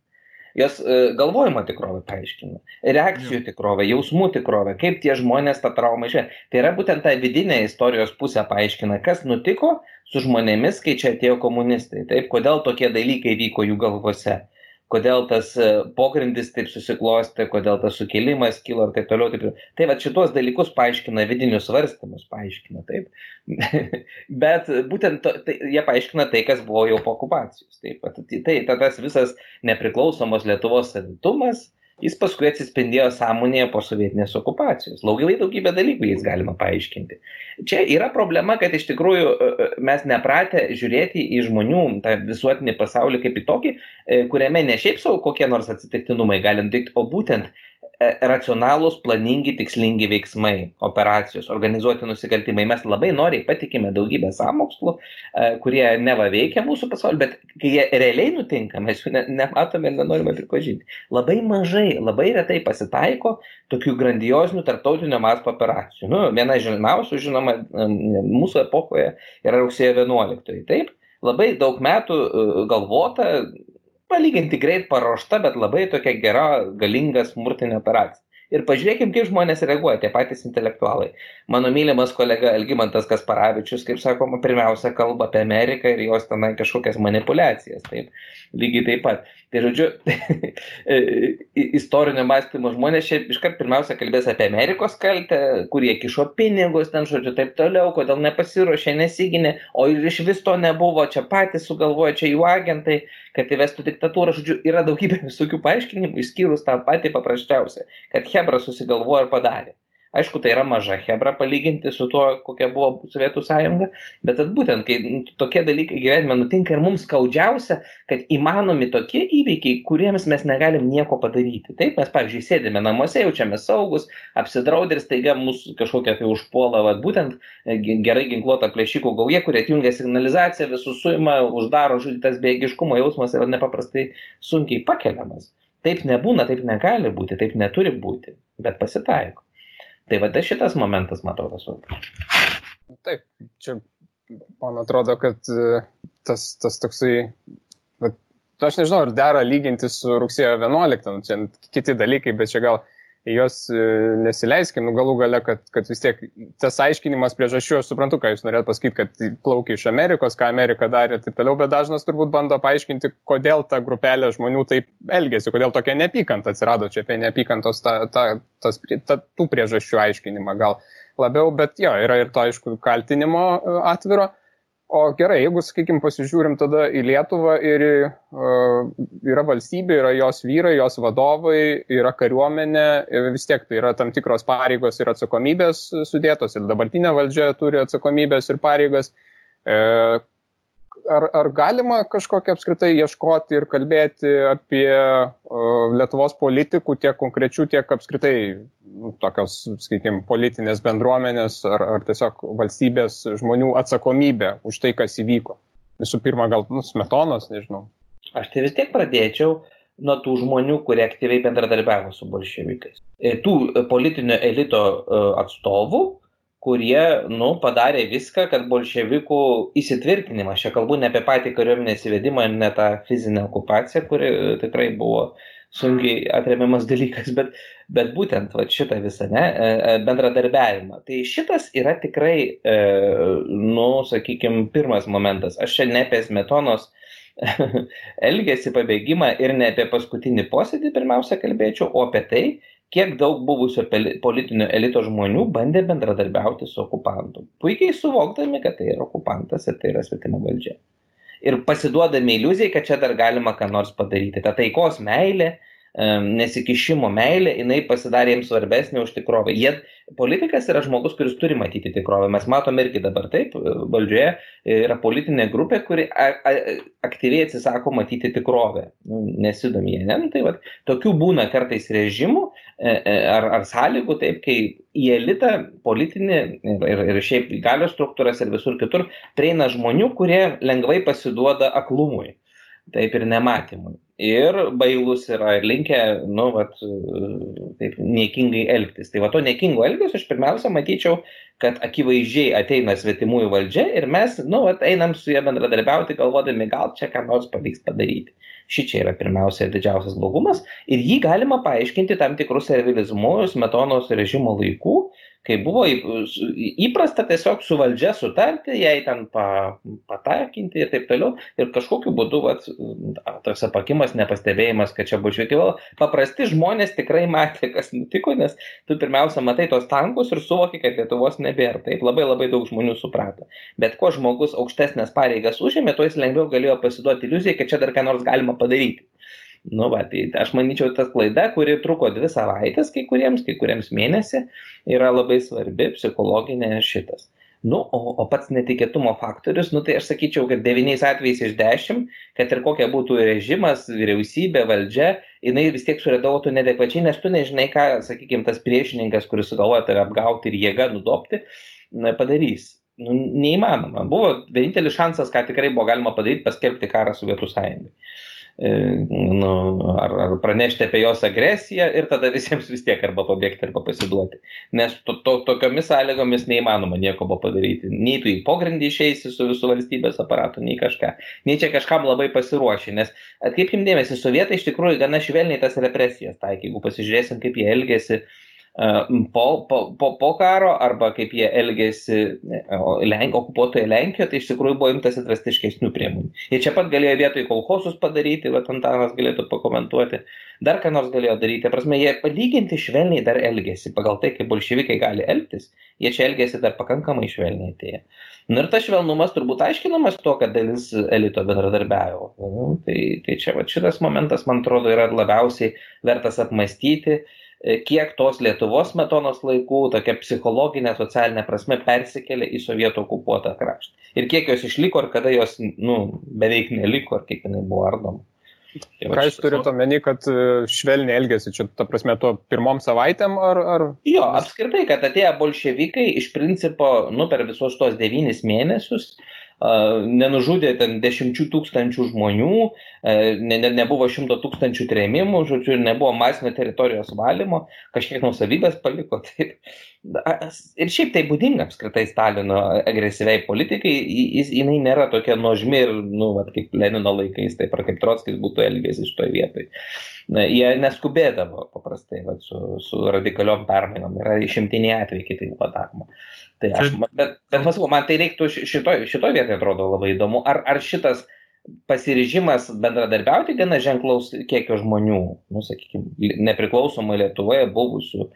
S2: Jos galvojimo tikrovę paaiškina, reakcijų tikrovę, jausmų tikrovę, kaip tie žmonės tą traumą išėjo. Tai yra būtent ta vidinė istorijos pusė paaiškina, kas nutiko su žmonėmis, kai čia atėjo komunistai. Taip, kodėl tokie dalykai vyko jų galvose. Kodėl tas pogrindis taip susiklostė, kodėl tas sukilimas kilo ir taip toliau. Tai šitos dalykus paaiškina, vidinius svarstymus paaiškina, taip. Bet būtent jie paaiškina tai, kas buvo jau po okupacijos. Tai tas visas nepriklausomos Lietuvos savitumas, jis paskui atsispindėjo sąmonėje po sovietinės okupacijos. Daugybę dalykų jais galima paaiškinti. Čia yra problema, kad iš tikrųjų mes nepratę žiūrėti į žmonių tą visuotinį pasaulį kaip į tokį, kuriame ne šiaip savo kokie nors atsitiktinumai gali nutikti, o būtent racionalūs, planingi, tikslingi veiksmai, operacijos, organizuoti nusikaltimai. Mes labai noriai patikime daugybę sąmokslų, kurie neva veikia mūsų pasaulį, bet kai jie realiai nutinka, mes jų nematome ir nenorime pripažinti. Labai mažai, labai retai pasitaiko tokių grandiozinių tarptautinio masto operacijų. Viena žinomiausių, žinoma, mūsų epochoje yra rugsėjo 11. Taip, labai daug metų galvota, palyginti greit paruošta, bet labai tokia gera, galinga smurtinė operacija. Ir pažiūrėkim, kaip žmonės reaguoja, tie patys intelektualai. Mano mylimas kolega Algimantas Kasparavičius, kaip sakoma, pirmiausia kalba apie Ameriką ir jos tenai kažkokias manipulacijas. Taip, lygiai taip pat. Tai žodžiu, istorinio mąstymo žmonės čia iškart pirmiausia kalbės apie Amerikos kaltę, kurie kišo pinigus, ten žodžiu, taip toliau, kodėl nepasiruošė, nesiginė, o ir iš vis to nebuvo, čia patys sugalvoja, čia jų agentai, kad įvestų diktatūrą. Žodžiu, yra daugybė visokių paaiškinimų, išskyrus tą patį paprasčiausią, kad Hebra susigalvojo ir padarė. Aišku, tai yra maža Hebra palyginti su tuo, kokia buvo Sovietų sąjunga, bet būtent, kai tokie dalykai gyvenime nutinka ir mums skaudžiausia, kad įmanomi tokie įvykiai, kuriems mes negalim nieko padaryti. Taip, mes, pavyzdžiui, sėdime namuose, jaučiame saugus, apsidraudę ir staiga mūsų kažkokia tai užpuola, būtent gerai ginkluota plėšikų gauja, kurie atjungia signalizaciją, visus suima, uždaro, tas bejėgiškumo jausmas yra nepaprastai sunkiai pakeliamas. Taip nebūna, taip negali būti, taip neturi būti, bet pasitaiko. Tai šitas momentas, man atrodo, svarbus.
S1: Taip, čia man atrodo, kad tas toksai, aš nežinau, ar dera lyginti su rugsėjo 11, čia kiti dalykai, bet čia gal jos nesileiskim, galų gale, kad vis tiek tas aiškinimas priežasčių, aš suprantu, ką jūs norėt pasakyti, kad plaukia iš Amerikos, ką Amerika darė ir taip toliau, bet dažnas turbūt bando paaiškinti, kodėl ta grupelė žmonių taip elgėsi, kodėl tokia neapykanta atsirado čia apie neapykantos tų priežasčių aiškinimą gal labiau, bet jo, yra ir to, aišku, kaltinimo atviro. O gerai, jeigu, sakykime, pasižiūrim tada į Lietuvą ir yra valstybė, yra jos vyrai, jos vadovai, yra kariuomenė, vis tiek tai yra tam tikros pareigos ir atsakomybės sudėtos ir dabartinė valdžia turi atsakomybės ir pareigas. Ar galima kažkokią apskritai ieškoti ir kalbėti apie Lietuvos politikų tiek konkrečių, tiek apskritai tokios, sakykime, politinės bendruomenės ar tiesiog valstybės žmonių atsakomybę už tai, kas įvyko? Visų pirma, gal Smetonos, nežinau.
S2: Aš tai vis tiek pradėčiau nuo tų žmonių, kurie aktyviai bendradarbiavo su bolševikais. Tų politinio elito atstovų, kurie, padarė viską, kad bolševikų įsitvirtinimas, čia kalbu ne apie patį kariuomenės įvedimą ir ne tą fizinę okupaciją, kuri tikrai buvo sunkiai atremiamas dalykas, bet būtent šitą visą bendradarbiavimą. Tai šitas yra tikrai, sakykime, pirmas momentas. Aš čia ne apie Smetonos elgesį, pabėgimą ir ne apie paskutinį posėdį pirmiausia kalbėčiau, o apie tai, kiek daug buvusio politinio elito žmonių bandė bendradarbiauti su okupantu. Puikiai suvokdami, kad tai yra okupantas ir tai yra svetima valdžia. Ir pasiduodami iliuzijai, kad čia dar galima ką nors padaryti. Ta taikos meilė, nesikišimo meilė, jinai pasidarė jiems svarbesnė už tikrovę. Politikas yra žmogus, kuris turi matyti tikrovę. Mes matome irgi dabar taip, valdžioje yra politinė grupė, kuri aktyviai atsisako matyti tikrovę. Nesidomi jie, ne? Tai tokių būna kartais režimų ar sąlygų, taip, kai į elitą politinį ir šiaip galios struktūras ir visur kitur prieina žmonių, kurie lengvai pasiduoda aklumui, taip ir nematymui. Ir bailus yra ir linkę, taip, niekingai elgtis. Tai to niekingo elgesio aš pirmiausia matyčiau, kad akivaizdžiai ateina svetimųjų valdžia ir mes, einam su jie bendradarbiauti, galvodami, gal čia ką nors pavyks padaryti. Šičia yra pirmiausia didžiausias blogumas ir jį galima paaiškinti tam tikrus servilizmu Smetonos režimo laikų, kai buvo įprasta tiesiog su valdžia sutarti, jai ten patakinti ir taip toliau. Ir kažkokiu būdu tas apakimas, nepastebėjimas, kad čia bolševikai. Paprasti žmonės tikrai matė, kas nutiko, nes tu pirmiausia matai tos tankus ir suvoki, kad Lietuvos nebėra. Taip, labai daug žmonių suprato. Bet kuo žmogus aukštesnės pareigas užėmė, tuo jis lengviau galėjo pasiduoti iliuzijai, kad čia dar ką nors galima padaryti. Tai aš manyčiau, tas klaida, kuri truko 2 savaitės kai kuriems mėnesį, yra labai svarbi, psichologinė šitas. O pats netikėtumo faktorius, tai aš sakyčiau, kad 9 atvejais iš 10, kad ir kokia būtų režimas, vyriausybė, valdžia, jinai vis tiek suredagotų nedekvačiai, nes tu nežinai, ką, sakykime, tas priešininkas, kuris sugalvoja tave apgauti ir jėga nudopti, padarys. Neįmanoma. Buvo vienintelis šansas, ką tikrai buvo galima padaryti, paskelbti karą Sovietų sąjungai. ar pranešti apie jos agresiją ir tada visiems vis tiek arba pabėgti, arba pasiduoti. Nes tokiomis sąlygomis neįmanoma nieko padaryti. Nei tu į pogrindį išeisi su visų valstybės aparatu, nei kažką. Nei čia kažkam labai pasiruoši. Nes atkreipkim dėmesį, sovietai iš tikrųjų gana švelniai tas represijas taikė. Jeigu pasižiūrėsim, kaip jie elgėsi po karo arba kaip jie elgėsi okupuotoje Lenkijoje, tai iš tikrųjų buvo imtasi drastiškesnių priemonių. Jie čia pat galėjo vietoj kolchosus padaryti, bet Antanas galėtų pakomentuoti, dar ką nors galėjo daryti. Prasme, jie palyginti švelniai dar elgėsi, pagal tai, kaip bolševikai gali elgtis, jie čia elgėsi dar pakankamai švelniai. Ir tas švelnumas turbūt aiškinamas to, kad dalis elito bendradarbiavo. Tai čia šitas momentas, man atrodo, yra labiausiai vertas apmastyti, kiek tos Lietuvos Smetonos laikų tokia psichologinė, socialinė prasme persikėlė į sovietų okupuotą kraštą. Ir kiek jos išliko, ir kada jos beveik neliko, ir kiek jinai buvo ardoma.
S1: Ką jūs turite omeny, kad švelniai elgėsi čia, ta prasme, to pirmom savaitėm, ar...
S2: Jo, apskritai, kad atėjo bolševikai iš principo, per visus tos 9 mėnesius, nenužudė ten 10 000 žmonių, nebuvo 100 000 trėmimų, žodžiu, ir nebuvo masinio teritorijos valymo, kažkiek nuosavybės paliko. Taip. Ir šiaip tai būdinga apskritai Stalino agresyviai politikai, jinai nėra tokia nuožmi ir, kaip Lenino laikais, taip ar kaip Trotskis būtų elgęsis šitoje vietoje. Jie neskubėdavo paprastai su radikaliom permainom, yra išimtiniai atvejai, kai tai buvo daroma. Tai bet man tai reiktų šitoj vietoje atrodo labai įdomu. Ar šitas pasiryžimas bendradarbiauti gana ženklaus kiekio žmonių, sakykime, nepriklausomai Lietuvoje buvusių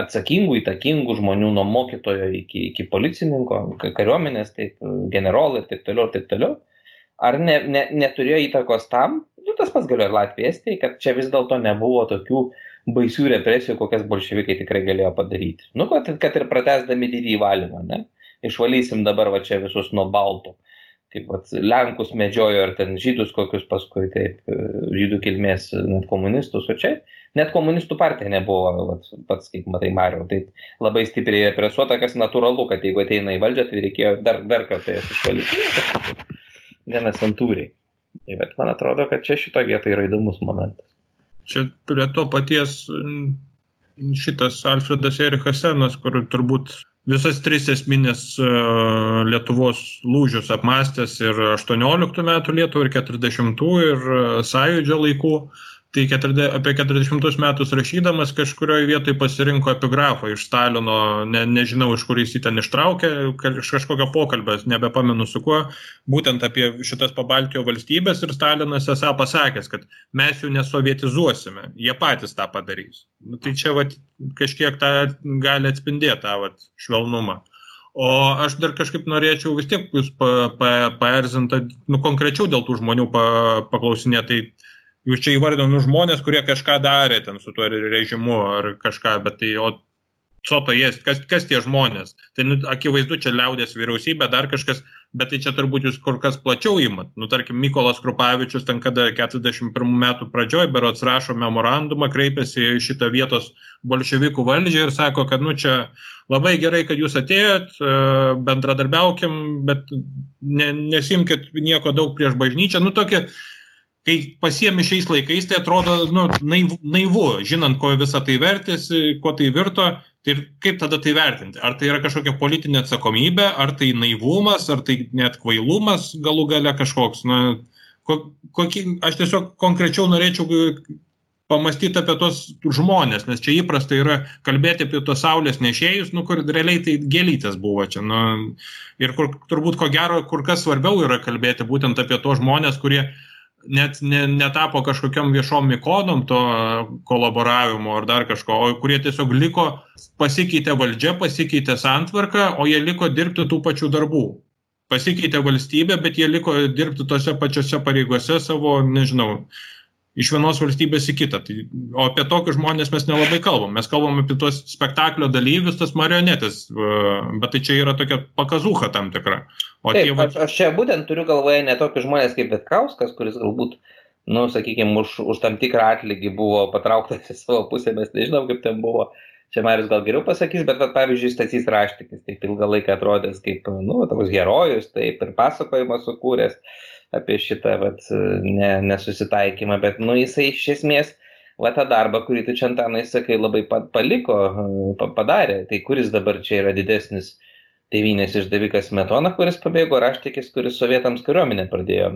S2: atsakingų, įtakingų žmonių nuo mokytojo iki policininko, kariuomenės, taip, generolai ir taip toliau, ar neturėjo įtakos tam, tas pats galėjo ir Latvija, Estija, kad čia vis dėlto nebuvo tokių baisių represijų, kokias bolševikai tikrai galėjo padaryti. Kad ir pratęsdami didįjį valymą, ne? Išvalysim dabar čia visus nuo baltų. Kaip Lenkus medžiojo ir ten žydus kokius paskui, taip, žydų kilmės net komunistus, o čia net komunistų partija nebuvo, pats, kaip matai, Mariau, tai labai stipriai represuota, kas natūralu, kad jeigu ateina į valdžią, tai reikėjo dar kartą jas išvalyti. Gana santūriai. Bet man atrodo, kad čia šito vietoje yra įdomus momentas.
S3: Čia prie to paties šitas Alfredas Erichas Senas, kur turbūt visas 3 esminės Lietuvos lūžius apmastęs ir 18 metų Lietuvą, ir 40 ir Sąjūdžio laikų. Tai apie 40 metus rašydamas kažkurioje vietoje pasirinko epigrafą iš Stalino, nežinau, iš kur jis jį ten ištraukė, iš kažkokio pokalbio, nebepamenu su kuo, būtent apie šitas Pabaltijo valstybės, ir Stalinas esą pasakęs, kad mes jų nesovietizuosime, jie patys tą padarys. Tai čia kažkiek tą gali atspindėti tą švelnumą. O aš dar kažkaip norėčiau vis tiek jūs paerzinti, konkrečiau dėl tų žmonių paklausinėti. Jūs čia įvardino žmonės, kurie kažką darė ten su tuo režimu ar kažką, bet tai, kas tie žmonės? Tai akivaizdu, čia liaudės vyriausybė, dar kažkas, bet tai čia turbūt jūs kur kas plačiau imat. Tarkim, Mykolas Krupavičius ten kada 41 metų pradžioj berods rašo memorandumą, kreipiasi į šitą vietos bolševikų valdžią ir sako, kad čia labai gerai, kad jūs atėjot, bendradarbiaukim, bet nesimkit nieko daug prieš bažnyčią. Tokie, kai pasiemi šiais laikais, tai atrodo naivu, žinant, ko visą tai vertėsi, ko tai virto, tai kaip tada tai vertinti? Ar tai yra kažkokia politinė atsakomybė, ar tai naivumas, ar tai net kvailumas galų gale kažkoks? Aš tiesiog konkrečiau norėčiau pamastyti apie tos žmonės, nes čia įprasta yra kalbėti apie tos saulės nešėjus, kur realiai tai gėlytės buvo čia. Ir turbūt ko gero, kur kas svarbiau yra kalbėti būtent apie tos žmonės, kurie net netapo kažkokiam viešom ikonom to kolaboravimo ar dar kažko, o kurie tiesiog liko, pasikeitė valdžia, pasikeitė santvarka, o jie liko dirbti tų pačių darbų. Pasikeitė valstybė, bet jie liko dirbti tose pačiose pareigose savo, nežinau, iš vienos valstybės į kitą. O apie tokius žmonės mes nelabai kalbam. Mes kalbam apie tos spektaklio dalyvius, tas marionetės, bet tai čia yra tokia pakazūcha tam tikra.
S2: Taip, aš čia būtent turiu galvoje ne tokius žmonės kaip Vitkauskas, kuris galbūt, sakykime, už tam tikrą atlygį buvo patrauktas į savo pusę, mes nežinom, kaip ten buvo. Čia Marius gal geriau pasakys, bet pavyzdžiui, Stasys Raštikis, taip ilgą laiką atrodęs kaip, toks herojus, taip ir pasakojimą sukūręs. apie šitą nesusitaikymą, bet jisai iš esmės tą darbą, kurį tu čia, Antanai, sakai, labai padarė. Tai kuris dabar čia yra didesnis tėvynės išdavikas Smetona, kuris pabėgo, Raštikis, kuris sovietams kariuomenę pradėjo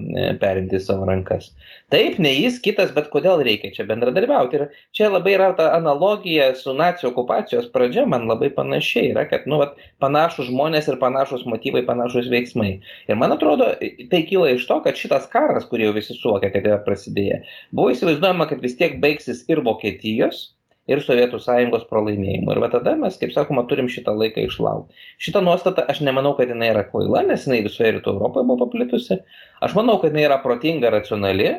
S2: perimti savo rankas. Taip, ne jis, kitas, bet kodėl reikia čia bendradarbiauti. Ir čia labai yra ta analogija su nacių okupacijos pradžia, man labai panašiai yra, kad panašus žmonės ir panašus motyvai, panašus veiksmai. Ir man atrodo, tai kyla iš to, kad šitas karas, kurį jau visi suvokia, kad yra prasidėję, buvo įsivaizduojama, kad vis tiek baigsis ir Vokietijos, ir Sovietų sąjungos pralaimėjimų. Ir tada mes, kaip sakoma, turim šitą laiką išlaukti. Šitą nuostatą aš nemanau, kad jinai yra kvaila, nes jinai visoje Rytų Europoje buvo paplitusi. Aš manau, kad jinai yra protinga, racionali.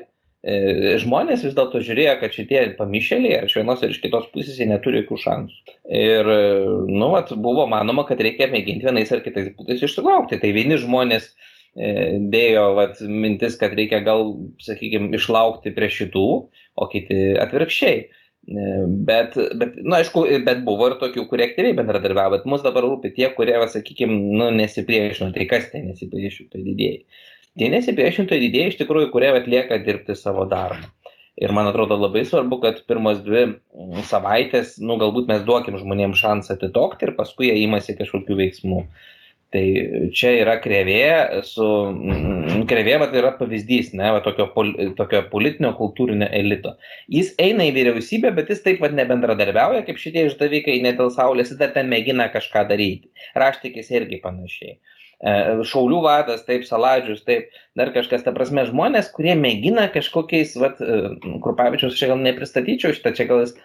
S2: Žmonės vis dėlto žiūrėjo, kad šitie pamišėliai, ar iš vienos ir iš kitos pusės, jie neturi jokių šansų. Ir, buvo manoma, kad reikia mėginti vienais ar kitais būdais išsilaukti. Tai vieni žmonės dėjo mintis, kad reikia gal, sakykime, išlaukti prie šitų, o kiti atvirkščiai. Bet buvo ir tokių, kurie aktyviai bendradarbiavo, bet mus dabar rūpi tie, kurie, sakykime, nesipriešino. Tai kas tai nesipriešintojai didėjai? Tie nesipriešintojai didėjai iš tikrųjų, kurie atlieka dirbti savo darbą. Ir man atrodo labai svarbu, kad pirmos 2 savaitės, galbūt mes duokim žmonėms šansą atitokti ir paskui jie imasi kažkokių veiksmų. Tai čia yra krėvė, yra pavyzdys, tokio politinio kultūrinio elito. Jis eina į vyriausybę, bet jis taip nebendradarbiauja, kaip šitie išdavikai, net dėl saulės, jis dar ten mėgina kažką daryti. Raštikis irgi panašiai. Šaulių vadas, taip, Saladžius, taip, dar kažkas, ta prasme, žmonės, kurie mėgina kažkokiais, Krupavičiaus čia gal nepristatyčiau šitą, čia gal jis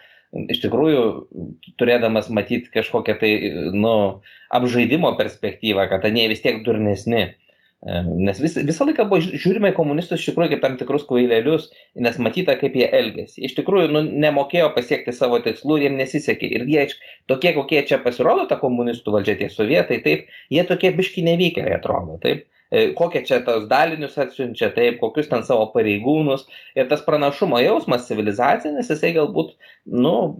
S2: iš tikrųjų, turėdamas matyti kažkokią tai, apžaidimo perspektyvą, kad jie vis tiek durnesni. Nes visą laiką buvo žiūrime į komunistus iš tikrųjų kaip tam tikrus kvailelius, nes matyta, kaip jie elgėsi. Iš tikrųjų, nemokėjo pasiekti savo tikslų ir jiems nesisekė. Ir jie tokie, kokie čia pasirodo ta komunistų valdžia, tie sovietai, taip, jie tokie biški nevykėliai atrodo, taip. Kokie čia tos dalinius atsiunčia, taip, kokius ten savo pareigūnus. Ir tas pranašumo jausmas civilizacinis, jisai galbūt,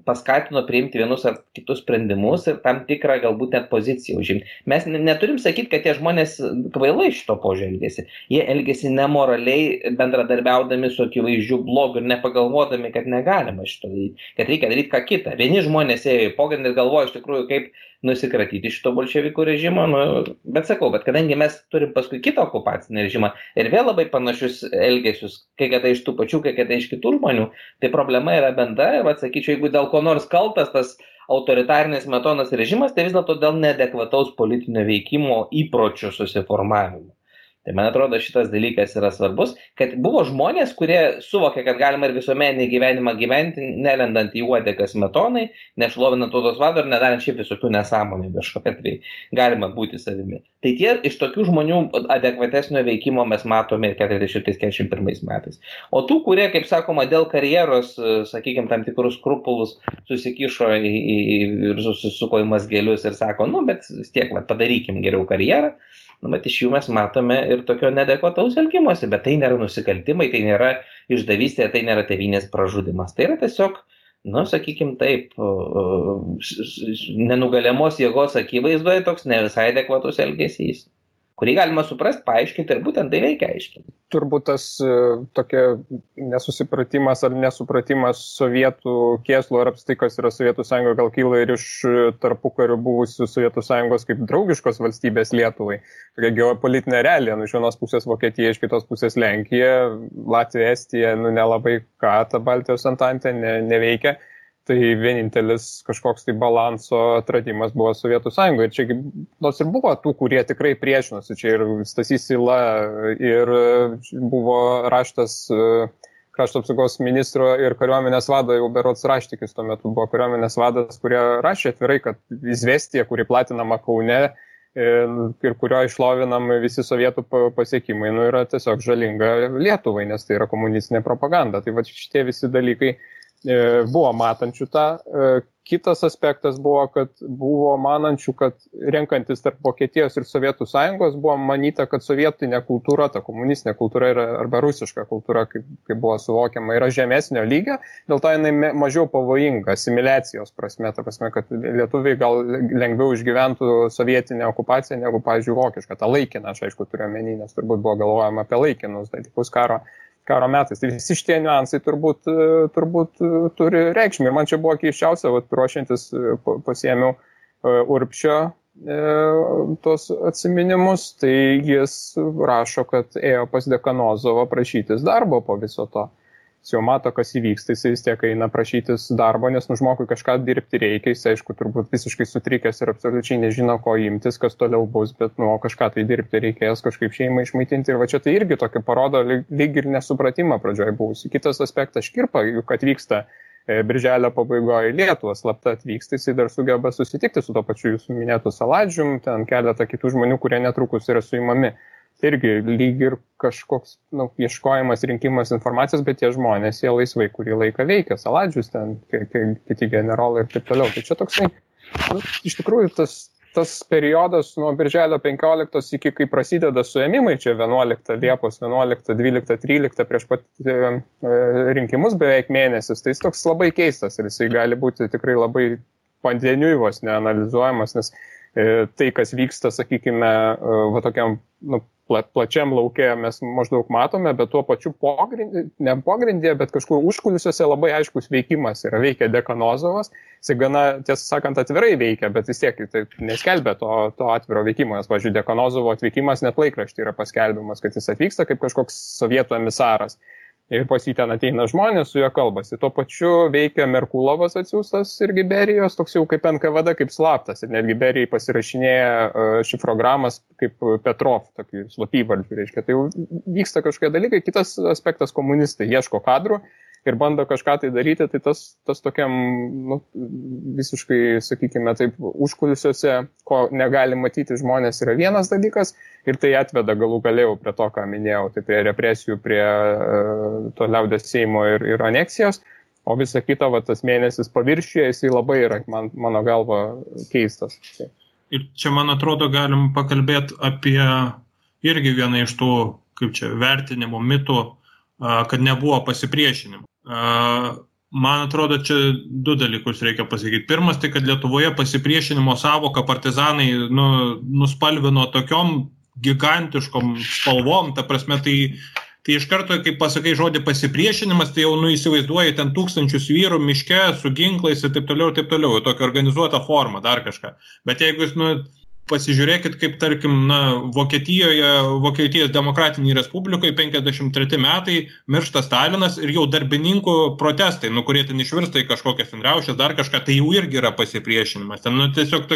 S2: paskatino priimti vienus ar kitus sprendimus ir tam tikrą galbūt net poziciją užimti. Mes neturim sakyti, kad tie žmonės kvailai šito požiūrio elgėsi. Jie elgėsi nemoraliai, bendradarbiaudami su akivaizdžiu blogu ir nepagalvodami, kad negalima šito daryti, kad reikia daryti ką kitą. Vieni žmonės ėjo į pogrindį ir galvojo iš tikrųjų, kaip nusikratyti šito bolševikų režimo, bet kadangi mes turim paskui kitą okupacinį režimą ir vėl labai panašius elgesius, kai kada iš tų pačių, kai kada iš kitų žmonių, tai problema yra bendra ir, sakyčiau, jeigu dėl ko nors kaltas tas autoritarinis Smetonos režimas, tai vis dėlto dėl neadekvataus politinio veikimo įpročių susiformavimo. Tai man atrodo šitas dalykas yra svarbus, kad buvo žmonės, kurie suvokė, kad galima ir visuomeninį gyvenimą gyventi, nelendant į uodegą Smetonai, nešlovinant tautos vado ir nedarant šiaip visokių nesąmonių kažkokia, tai galima būti savimi. Tai tie iš tokių žmonių adekvatesnio veikimo mes matome ir 40-41 metais. O tų, kurie, kaip sakoma, dėl karjeros, sakykime, tam tikrus skrupulus susikišo ir susisuko į mazgelius ir sako, bet vis tiek padarykim geriau karjerą. Bet iš jų mes matome ir tokio neadekvataus elgimosi, bet tai nėra nusikaltimai, tai nėra išdavystė, tai nėra tėvynės pražudimas. Tai yra tiesiog, sakykime taip, nenugaliamos jėgos akivaizdoje toks ne visai adekvatus elgesys, kurį galima suprasti, paaiškinti ir būtent tai reikia aiškinti.
S1: Turbūt tas tokia nesusipratimas ar nesupratimas sovietų kėslų ar apskritai, kas yra Sovietų sąjunga, gal kyla ir iš tarpukariu buvusių Sovietų sąjungos kaip draugiškos valstybės Lietuvai. Tokia geopolitinė realija, iš vienos pusės Vokietija, iš kitos pusės Lenkija, Latvija, Estija, nelabai ką ta Baltijos antantė neveikia. Tai vienintelis kažkoks tai balanso atradimas buvo Sovietų sąjungoje. Ir čia nors ir buvo tų, kurie tikrai priešinosi. Čia ir Stasys Yla, ir buvo raštas krašto apsaugos ministro ir kariuomenės vado, jau berods Raštikis tuo metu buvo kariuomenės vadas, kurie rašė atvirai, kad izvestija, kuri platinama Kaune ir kurio išlovinam visi sovietų pasiekimai, yra tiesiog žalinga Lietuvai, nes tai yra komunistinė propaganda. Tai va šitie visi dalykai buvo matančių tą. Kitas aspektas buvo, kad buvo manančių, kad renkantis tarp Vokietijos ir Sovietų sąjungos buvo manyta, kad sovietinė kultūra, ta komunistinė kultūra arba rusiška kultūra, kaip buvo suvokiama, yra žemesnio lygio, dėl to jinai mažiau pavojinga asimiliacijos prasme, ta prasme, kad lietuviai gal lengviau išgyventų sovietinę okupaciją negu, pavyzdžiui, vokišką, tą laikiną, aš aišku turiu omeny, nes turbūt buvo galvojama apie laikinus dalykus karo metais. Tai visi šitie niuansai turbūt turi reikšmę. Ir man čia buvo keiščiausia, ruošiantis pasiėmiau Urbšio tos atsiminimus, tai jis rašo, kad ėjo pas Dekanozovą prašytis darbo po viso to. Jis jau mato, kas įvyks, tai jis vis tiek eina prašytis darbo, nes žmogui kažką dirbti reikia, jis aišku turbūt visiškai sutrikęs ir absoliučiai nežino, ko imtis, kas toliau bus, bet kažką tai dirbti reikės, kažkaip šeimą išmaitinti ir va čia tai irgi tokį parodo lyg ir nesupratimą pradžioje buvusi. Kitas aspektas Škirpa, juk atvyksta birželio pabaigoje į Lietuvą, slapta atvyksta, jis dar sugeba susitikti su to pačiu jūsų minėtu Saladžium, ten keletą kitų žmonių, kurie netrukus yra suimami. Irgi lyg ir kažkoks ieškojimas, rinkimas informacijos, bet tie žmonės, jie laisvai kurį laiką veikia, Saladžius ten, kiti generolai ir taip toliau. Tai čia toksai, iš tikrųjų tas periodas nuo birželio 15 iki kai prasideda suėmimai, čia 11 Liepos, 11, 12, 13 prieš pat rinkimus beveik mėnesis, tai jis toks labai keistas ir jisai gali būti tikrai labai pandeniui vos neanalizuojamas, nes tai, kas vyksta, sakykime, tokiam plačiam lauke mes maždaug matome, bet tuo pačiu ne pogrindėje, bet kažkur užkulisiuose labai aiškus veikimas yra. Veikia Dekanozovas, jis gana, tiesą sakant, atvirai veikia, bet vis tiek tai neskelbia to atviro veikimo, nes, pavyzdžiui, Dekanozovo atvykimas net laikrašty yra paskelbimas, kad jis atvyksta kaip kažkoks sovietų emisaras. Ir pas jį ten ateina žmonės, su juo kalbasi. Tuo pačiu veikia Merkulovas atsiųstas irgi Berijos, toks jau kaip NKVD, kaip slaptas. Ir netgi Berijai pasirašinėja šifrogramas kaip Petrov, tokį slapyvardžių, reiškia. Tai jau vyksta kažkokie dalykai. Kitas aspektas, komunistai ieško kadrų ir bando kažką tai daryti, tai tas tokiam visiškai, sakykime, taip, užkulisiuose, ko negali matyti žmonės, yra vienas dalykas ir tai atveda galų galėjau prie to, ką minėjau, tai prie represijų, prie to liaudės Seimo ir aneksijos, o visa kita, tas mėnesis paviršiuje, jisai labai yra, mano galva, keistas.
S3: Ir čia, man atrodo, galim pakalbėti apie irgi vieną iš tų, kaip čia, vertinimo mitų, kad nebuvo pasipriešinimo. Man atrodo, čia du dalykus reikia pasakyti. Pirmas, tai kad Lietuvoje pasipriešinimo savoką partizanai nuspalvino tokiom gigantiškom spalvom, ta prasme, tai iš karto, kai pasakai žodį pasipriešinimas, tai jau įsivaizduoji ten tūkstančius vyrų miške su ginklais ir taip toliau, tokia organizuota forma, dar kažką. Bet jeigu jūs pasižiūrėkit, kaip, tarkim, Vokietijos demokratinėje Respublikoje 53 metai miršta Stalinas ir jau darbininkų protestai, kurie ten išvirsta į kažkokias riaušes, dar kažką, tai jau irgi yra pasipriešinimas. Ten tiesiog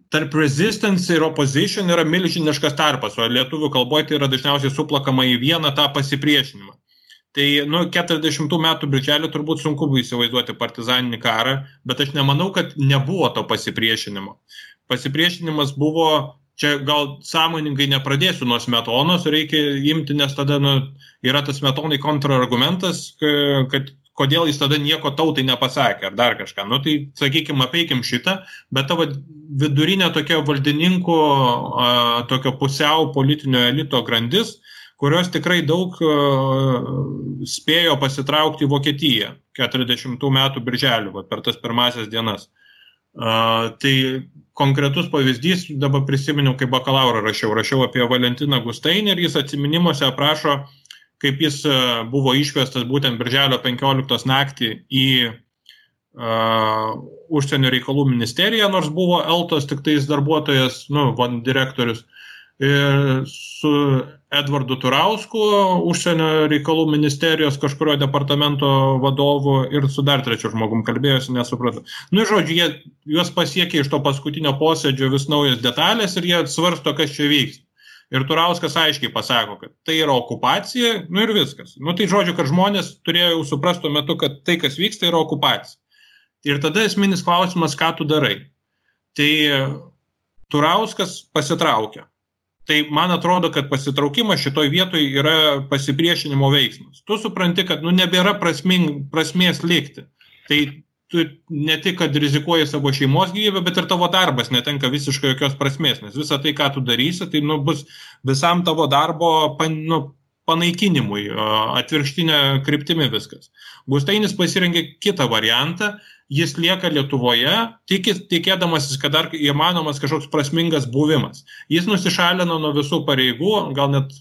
S3: tarp resistance ir opposition yra milžiniškas tarpas, o lietuvių kalboje tai yra dažniausiai suplakama į vieną tą pasipriešinimą. Tai 40 metų birželį turbūt sunku buvo įsivaizduoti partizaninį karą, bet aš nemanau, kad nebuvo to pasipriešinimo. Pasipriešinimas buvo, čia gal sąmoningai nepradėsiu nuo Smetonos, reikia imti, nes tada yra tas Smetonai kontrargumentas, kad kodėl jis tada nieko tautai nepasakė ar dar kažką. Tai, sakykime, apeikim šitą, bet tavo vidurinė tokia valdininkų, tokio pusiau politinio elito grandis, kurios tikrai daug spėjo pasitraukti į Vokietiją 40 metų birželį, per tas pirmasias dienas. Tai konkretus pavyzdys, dabar prisiminiau, kai bakalaurą rašiau apie Valentiną Gustainį ir jis atsiminimuose aprašo, kaip jis buvo išvestas būtent birželio 15 naktį į užsienio reikalų ministeriją, nors buvo Eltos tik tais darbuotojas, direktorius, su Edvardu Turausku, užsienio reikalų ministerijos kažkurio departamento vadovu ir su dar trečiu žmogum kalbėjosi, nesupratau. Žodžiu, juos pasiekė iš to paskutinio posėdžio vis naujas detalės ir jie svarsto, kas čia vyks. Ir Turauskas aiškiai pasako, kad tai yra okupacija, ir viskas. Tai žodžiu, kad žmonės turėjo jau suprasti tuo metu, kad tai, kas vyksta, yra okupacija. Ir tada esminis klausimas, ką tu darai. Tai Turauskas pasitraukia. Tai man atrodo, kad pasitraukimas šitoj vietoj yra pasipriešinimo veiksmas. Tu supranti, kad nebėra prasmės likti. tai tu ne tik, kad rizikuoji savo šeimos gyvybę, bet ir tavo darbas netenka visiškai jokios prasmės, nes visą tai, ką tu darysi, tai bus visam tavo darbo panaikinimui, atvirkštinė kryptimi viskas. Gustainis pasirengė kitą variantą, jis lieka Lietuvoje, tikėdamasis, kad dar įmanomas kažkoks prasmingas buvimas. Jis nusišalino nuo visų pareigų, gal net,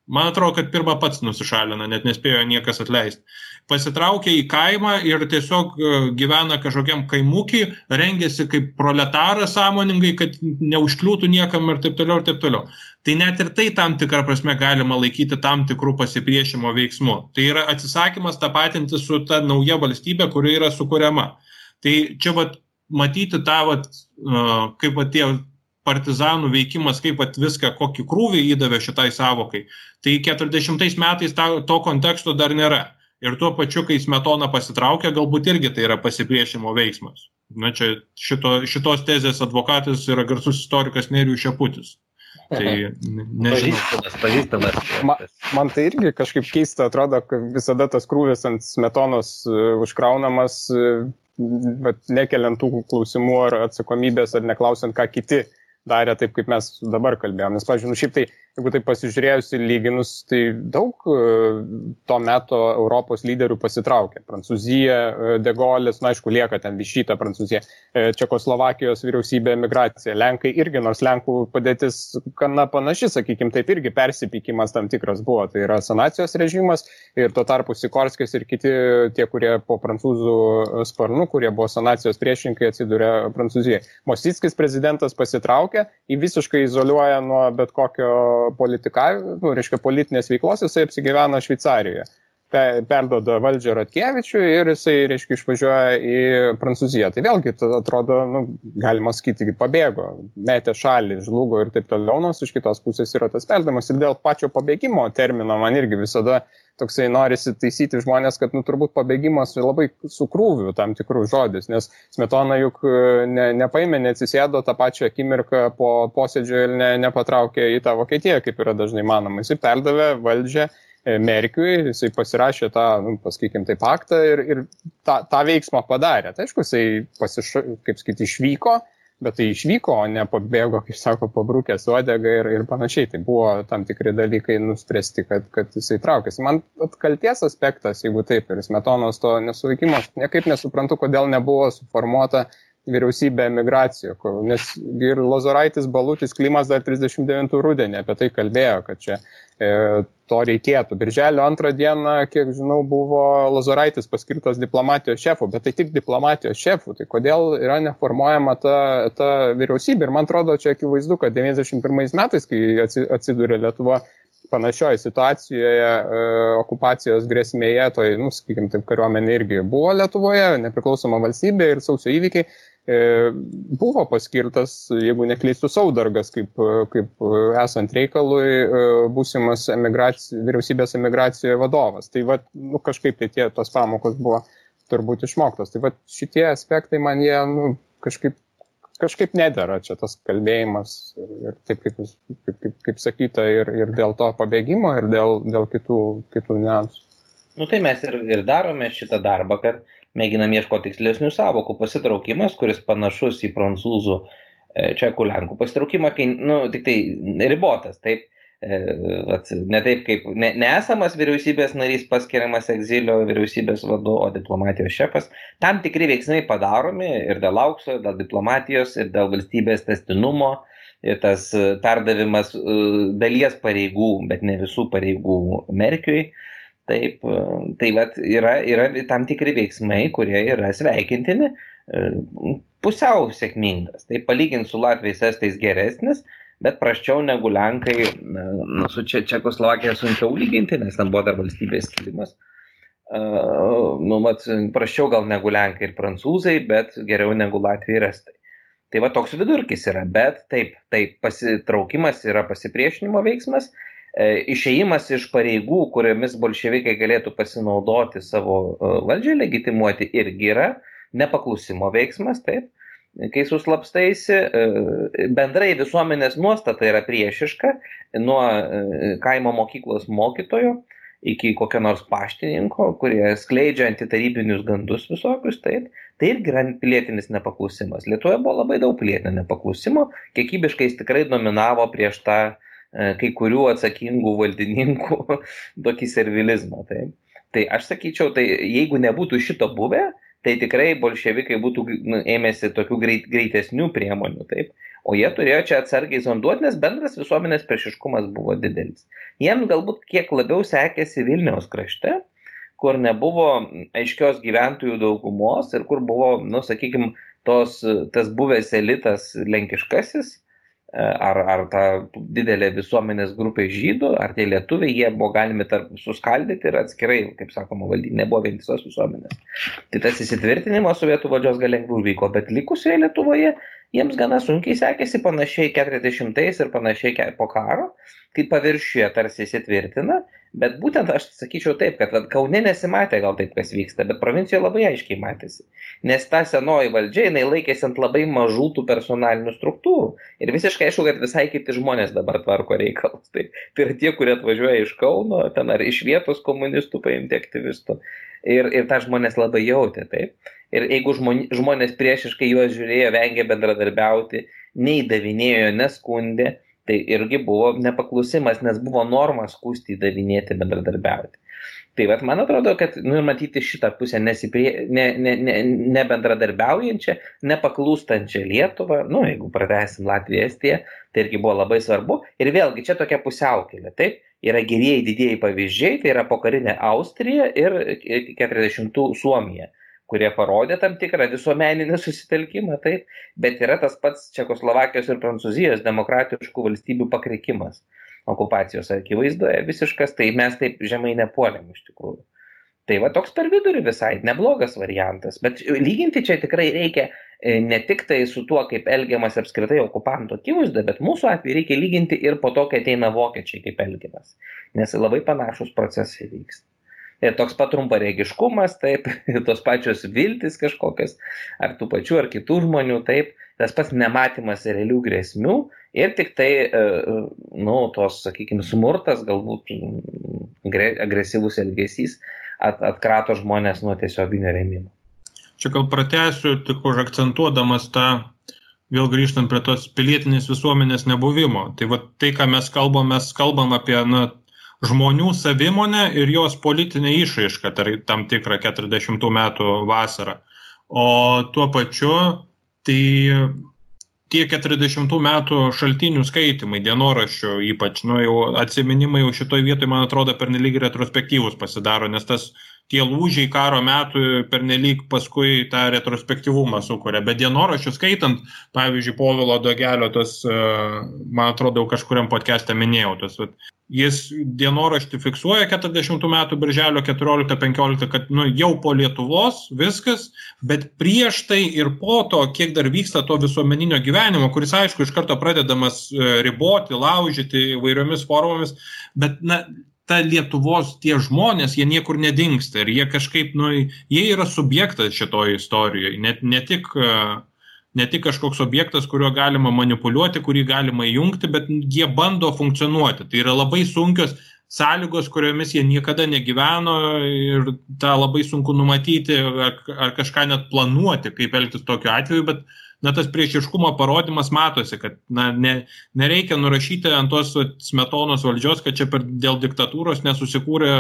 S3: man atrodo, kad pirmą pats nusišalino, net nespėjo niekas atleisti. Pasitraukė į kaimą ir tiesiog gyvena kažkokiam kaimukį, rengėsi kaip proletaras sąmoningai, kad neužkliūtų niekam ir taip toliau, ir taip toliau. Tai net ir tai tam tikrą prasme galima laikyti tam tikrų pasipriešimo veiksmų. Tai yra atsisakymas tapatinti su ta nauja valstybė, kuri yra sukuriama. Tai čia matyti tą, kaip tie partizanų veikimas, kaip viską, kokį krūvį įdavė šitai savokai. Tai 40 metais to konteksto dar nėra. Ir tuo pačiu, kai Smetona pasitraukia, galbūt irgi tai yra pasipriešimo veiksmas. Na, čia šitos tezės advokatas yra garsus istorikas Nerijus Šeputis. Tai nežinau.
S2: Pažįstamas.
S1: Man tai irgi kažkaip keista atrodo, kad visada tas krūvis ant Smetonos užkraunamas, bet nekeliant tų klausimų ar atsakomybės, ar neklausiant, ką kiti darė taip, kaip mes dabar kalbėjom. Nes, pavyzdžiui, šiaip tai, jeigu tai pasižiūrėjus ir lyginus, tai daug to meto Europos lyderių pasitraukė. Prancūzija, De Gaulės, aišku, lieka ten Višyta Prancūzija, Čekoslovakijos vyriausybė, emigracija. Lenkai irgi, nors Lenkų padėtis gana panaši, sakykime, taip irgi persipykimas tam tikras buvo. Tai yra sanacijos režimas ir tuo tarpu Sikorskis ir kiti tie, kurie po prancūzų sparnų, kurie buvo sanacijos priešininkai, atsidūrė Prancūzijoje. Mosickis prezidentas pasitraukė, jį visiškai izoliuoja nuo bet kokio politinės veiklos, jisai apsigyvena Šveicarijoje. Perduoda valdžią Ratkevičiui ir jisai, išvažiuoja į Prancūziją. Tai vėlgi, atrodo, galima sakyti, pabėgo, metė šalį, žlugo ir taip toliau, nors iš kitos pusės yra tas perdamas. Ir dėl pačio pabėgimo termino man irgi visada toksai norisi taisyti žmonės, kad turbūt pabėgimas labai sukrūviu tam tikrų žodis, nes Smetona juk nepaėmė, neatsisėdo tą pačią akimirką po posėdžio ir nepatraukė į tą Vokietiją, kaip yra dažnai manoma. Jisai perdavė valdžią Merkiui, jisai pasirašė tą, pasakykim, tai paktą ir tą veiksmą padarė. Tai aišku, jisai, išvyko, bet tai išvyko, o ne pabėgo, kaip sako, pabrukęs uodegą ir panašiai. Tai buvo tam tikri dalykai nuspręsti, kad jisai traukėsi. Man kalties aspektas, jeigu taip, ir Smetonos to nesuveikimo, niekaip nesuprantu, kodėl nebuvo suformuota vyriausybė emigracijo, nes ir Lozoraitis, Balutis, Klimas dar 39 rudenį apie tai kalbėjo, kad čia to reikėtų. Birželio 2 dieną, kiek žinau, buvo Lozoraitis paskirtas diplomatijos šefu, bet tai tik diplomatijos šefu, tai kodėl yra neformuojama ta vyriausybė. Ir man atrodo, čia akivaizdu, kad 91 metais, kai atsidūrė Lietuva panašioje situacijoje, okupacijos grėsmėje, toj, sakykime, taip, kariuomenė irgi buvo Lietuvoje, nepriklausoma valstybė ir sausio įvykiai, buvo paskirtas, jeigu neklystu, Saudargas, kaip esant reikalui būsimas vyriausybės emigracijoje vadovas. Tai kažkaip tai tos pamokos buvo turbūt išmoktos. Tai šitie aspektai man jie kažkaip nedera čia tas kalbėjimas ir taip kaip sakyta ir dėl to pabėgimo ir dėl kitų niuansų.
S2: Tai mes ir darome šitą darbą, kad mėginam ieškoti tikslesnių sąvokų. Pasitraukimas, kuris panašus į prancūzų, čekų, lenkų pasitraukimą, kai, tik tai ribotas, taip, ne taip kaip neesamas vyriausybės narys paskiriamas egzilio vyriausybės vadu, o diplomatijos šefas. Tam tikri veiksmai padaromi ir dėl aukso, ir dėl diplomatijos, ir dėl valstybės tęstinumo, ir tas perdavimas dalies pareigų, bet ne visų pareigų Merkiui. Taip, tai yra tam tikri veiksmai, kurie yra sveikintini, pusiau sėkmingas. Tai palyginti su Latviais, Estais geresnis, bet prasčiau negu Lenkai, su Čekoslovakija sunkiau lyginti, nes ten buvo dar valstybės skilimas. Prasčiau gal negu Lenkai ir Prancūzai, bet geriau negu Latvijai ir Estai. Tai toks vidurkis yra, bet taip, pasitraukimas yra pasipriešinimo veiksmas. Išėjimas iš pareigų, kuriomis bolševikai galėtų pasinaudoti savo valdžią legitimuoti, irgi yra nepaklusimo veiksmas, taip. Kai suslapstaisi, bendrai visuomenės nuostata yra priešiška nuo kaimo mokyklos mokytojo iki kokio nors paštininko, kurie skleidžia antitarybinius gandus visokius, taip, tai irgi yra pilietinis nepaklusimas. Lietuvoje buvo labai daug pilietinio nepaklusimo, kiekybiškai jis tikrai dominavo prieš tą kai kurių atsakingų valdininkų tokį servilizmą. Taip. Tai aš sakyčiau, tai jeigu nebūtų šito buvę, tai tikrai bolševikai būtų ėmėsi tokių greitesnių priemonių, taip. O jie turėjo čia atsargiai zonduoti, nes bendras visuomenės priešiškumas buvo didelis. Jiems galbūt kiek labiau sekėsi Vilniaus krašte, kur nebuvo aiškios gyventojų daugumos ir kur buvo, sakykime, tas buvęs elitas lenkiškasis, ar ta didelė visuomenės grupė žydų, ar tie lietuviai, jie buvo galimi suskaldyti ir atskirai, kaip sakoma, valdyti, nebuvo vientisos visuomenės. Tai tas įsitvirtinimas sovietų valdžios gal lengviau vyko, bet likusioje Lietuvoje jiems gana sunkiai sekėsi panašiai 40-ais ir panašiai po karo, kai paviršiuje tarsi įsitvirtina, bet būtent aš sakyčiau taip, kad Kaune nesimatė gal taip, kas vyksta, bet provincijoje labai aiškiai matėsi. Nes ta senoji valdžia, jinai laikėsi ant labai mažų tų personalinių struktūrų. Ir visiškai aišku, kad visai kiti žmonės dabar tvarko reikalus. Tai yra tie, kurie atvažiuoja iš Kauno, ten ar iš vietos komunistų paimti aktyvistų. Ir tą žmonės labai jautė, taip. Ir jeigu žmonės priešiškai juos žiūrėjo, vengė bendradarbiauti, neįdavinėjo, neskundė, tai irgi buvo nepaklusimas, nes buvo norma skųsti, įdavinėti, bendradarbiauti. Tai vat, man atrodo, kad matyti šitą pusę nebendradarbiaujančią, nepaklūstančią Lietuvą, jeigu pratęsim Latviją, Estiją, tai irgi buvo labai svarbu. Ir vėlgi, čia tokia pusiaukelė, taip, yra gerieji didieji pavyzdžiai, tai yra pokarinė Austrija ir 40-ų Suomija, kurie parodė tam tikrą visuomeninį susitelkimą, taip, bet yra tas pats Čekoslovakijos ir Prancūzijos demokratiškų valstybių pakrikimas okupacijos akivaizdoje visiškas, tai mes taip žemai nepuolėm iš tikrųjų. Tai va toks per vidurį visai neblogas variantas, bet lyginti čia tikrai reikia ne tik tai su tuo, kaip elgiamas apskritai okupanto akivaizdoje, bet mūsų atveju reikia lyginti ir po to, kai ateina vokiečiai, kaip elgiamas, nes labai panašus procesai vyksta. Ir toks pat trumparegiškumas, taip, tos pačios viltis kažkokios, ar tų pačių, ar kitų žmonių, taip, tas pats nematymas realių grėsmių ir tik tai, tos, sakykime, smurtas, galbūt agresyvus elgesys atkrato žmonės nuo tiesioginio rėmimo.
S3: Čia gal pratęsiu, tik užakcentuodamas tą, vėl grįžtant prie tos pilietinės visuomenės nebuvimo. Tai va tai, ką mes kalbam apie, žmonių savimonę ir jos politinę išraišką, tai tam tikrą 40 metų vasarą. O tuo pačiu, tai tie 40 metų šaltinių skaitimai, dienoraščių ypač, jau atsiminimai jau šitoj vietoj, man atrodo, pernelyg retrospektyvus pasidaro, nes tie lūžiai karo metų pernelyg paskui tą retrospektyvumą sukuria. Bet dienoraščių skaitant, pavyzdžiui, Povilo Dogelio, man atrodo, kažkuriam podcast'e minėjau, jis dienoraštį fiksuoja 40 metų birželio 14-15, kad jau po Lietuvos viskas, bet prieš tai ir po to, kiek dar vyksta to visuomeninio gyvenimo, kuris, aišku, iš karto pradedamas riboti, laužyti įvairiomis formomis, bet ta Lietuvos tie žmonės, jie niekur nedingsta ir jie kažkaip, jie yra subjektas šitoje istorijoje, ne tik kažkoks objektas, kuriuo galima manipuliuoti, kurį galima įjungti, bet jie bando funkcionuoti. Tai yra labai sunkios sąlygos, kuriomis jie niekada negyveno ir tą labai sunku numatyti ar kažką net planuoti, kaip elgtis tokiu atveju, bet tas priešiškumo parodymas matosi, kad nereikia nurašyti ant tos Smetonos valdžios, kad čia dėl diktatūros nesusikūrė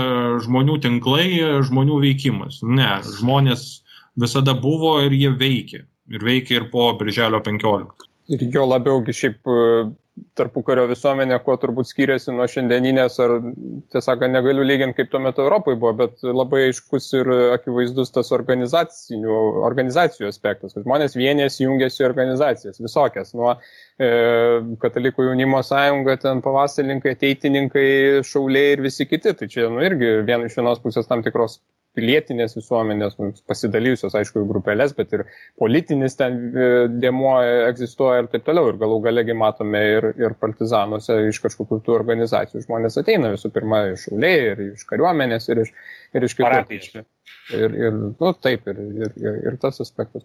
S3: žmonių tinklai, žmonių veikimas. Ne, žmonės visada buvo ir jie veikia. Ir veikia ir po birželio 15.
S1: Ir jo labiaugi šiaip tarpukario visuomenė, kuo turbūt skiriasi nuo šiandieninės, ar tiesiog negaliu lyginti, kaip tuo metu Europai buvo, bet labai aiškus ir akivaizdus tas organizacijų aspektas, kad žmonės vienės jungiasi į organizacijas, visokias, nuo Katalikų jaunimo sąjunga, ten pavasarininkai, ateitininkai, šauliai ir visi kiti, tai čia irgi iš vienos pusės tam tikros pilietinės visuomenės, pasidalyjusios, aišku, grupelės, bet ir politinis ten dėmuo egzistuoja ir taip toliau. Ir galų galegi matome ir partizanuose iš kažkokių tų organizacijų. Žmonės ateina visų pirma iš šauliai, ir iš kariuomenės, ir iš kitų. Ir tas aspektas.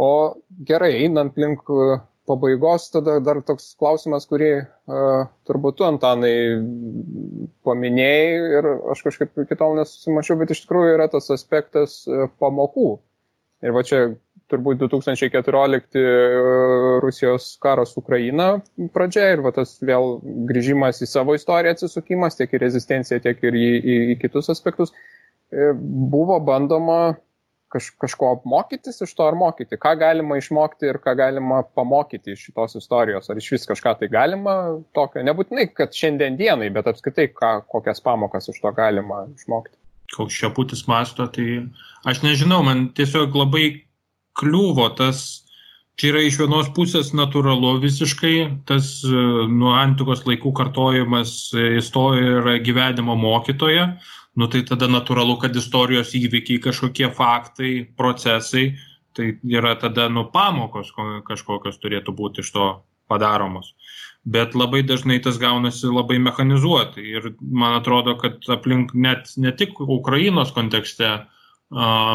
S1: O gerai, einant link pabaigos tada dar toks klausimas, kurį turbūt tu, Antanai, paminėjai ir aš kažkaip iki tol nesusimačiau, bet iš tikrųjų yra tas aspektas pamokų. Ir va čia turbūt 2014 Rusijos karas Ukraina pradžia ir va tas vėl grįžimas į savo istoriją atsisukimas, tiek į rezistenciją, tiek ir į kitus aspektus. Buvo bandoma kažko mokytis iš to ar mokyti. Ką galima išmokti ir ką galima pamokyti iš šitos istorijos. Ar iš vis kažką tai galima tokio. Nebūtinai, kad šiandien dienai, bet apskritai kokias pamokas iš to galima išmokti.
S3: Koks Šeputis masto, tai aš nežinau, man tiesiog labai kliūvo tas, čia yra iš vienos pusės natūralu visiškai, tas nuo antikos laikų kartojimas istorija yra gyvenimo mokytoja, nu tai tada natūralu, kad istorijos įvykiai, kažkokie faktai, procesai, tai yra tada pamokos kažkokios turėtų būti iš to padaromos. Bet labai dažnai tas gaunasi labai mechanizuotai ir man atrodo, kad aplink net ne tik Ukrainos kontekste,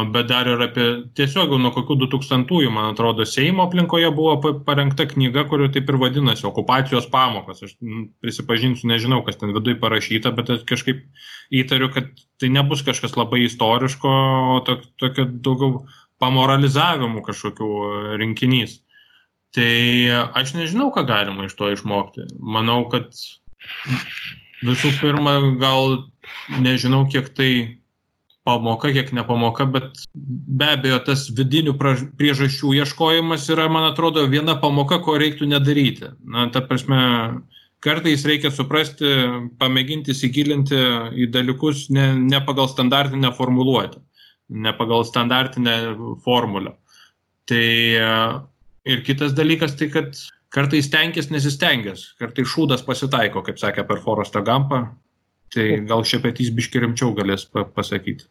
S3: bet dar ir apie tiesiog nuo kokių 2000-ųjų, man atrodo, Seimo aplinkoje buvo parengta knyga, kuri taip ir vadinasi okupacijos pamokos. Aš prisipažinsiu, nežinau, kas ten viduj parašyta, bet aš kažkaip įtariu, kad tai nebus kažkas labai istoriško, o tokio daugiau pamoralizavimų kažkokių rinkinys. Tai aš nežinau, ką galima iš to išmokti. Manau, kad visų pirma, gal nežinau, kiek tai pamoka, kiek nepamoka, bet be abejo tas vidinių priežasčių ieškojimas yra, man atrodo, viena pamoka, ko reiktų nedaryti. Na, ta prasme, kartais reikia suprasti, pamėginti įsigilinti į dalykus ne pagal standartinę formuluotę, ne pagal standartinę formulę. Tai ir kitas dalykas, tai kad kartais stenkis nesistengęs, kartais šūdas pasitaiko, kaip sakė per Forestą Gampą, tai gal Šepetys biškį rimčiau galės pasakyti.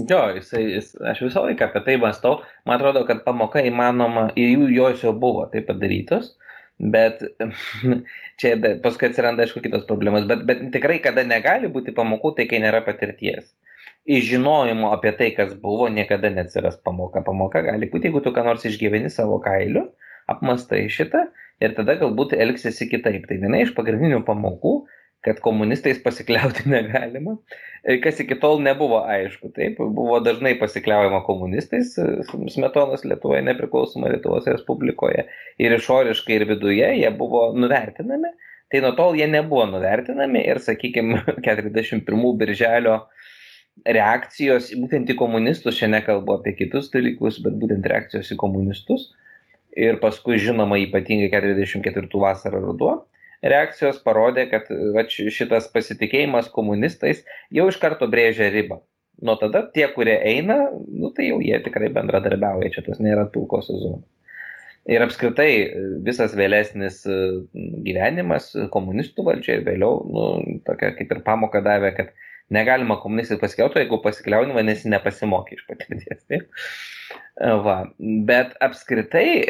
S2: Jo, aš visą laiką apie tai mąstau. Man atrodo, kad pamoka įmanoma, ir jos jau buvo tai padarytos, bet čia paskui atsiranda, aišku, kitos problemas, bet tikrai, kada negali būti pamokų, tai kai nėra patirties. Iš žinojimo apie tai, kas buvo, niekada neatsiras pamoka. Pamoka gali būti, jeigu tu ką nors išgyveni savo kailiu, apmastai šitą ir tada galbūt elgsiesi kitaip. Tai viena iš pagrindinių pamokų, kad komunistais pasikliauti negalima, kas iki tol nebuvo aišku. Taip, buvo dažnai pasikliaujama komunistais Smetonos Lietuvoje, nepriklausoma Lietuvos Respublikoje ir išoriškai ir viduje jie buvo nuvertinami, tai nuo tol jie nebuvo nuvertinami ir, sakykime, 41 birželio reakcijos būtent į komunistus, čia nekalbu apie kitus dalykus, bet būtent reakcijos į komunistus ir paskui žinoma ypatingai 44 vasarą ruduo, reakcijos parodė, kad šitas pasitikėjimas komunistais jau iš karto brėžia ribą. Nuo tada tie, kurie eina, tai jau jie tikrai bendradarbiauja, čia tas nėra pilkosios zonos. Ir apskritai visas vėlesnis gyvenimas komunistų valdžia ir vėliau, tokia kaip ir pamoka davė, kad negalima komunistai pasikliauti, jeigu pasikliauni, vadinasi nepasimokė iš patirties. Taip? Va. Bet apskritai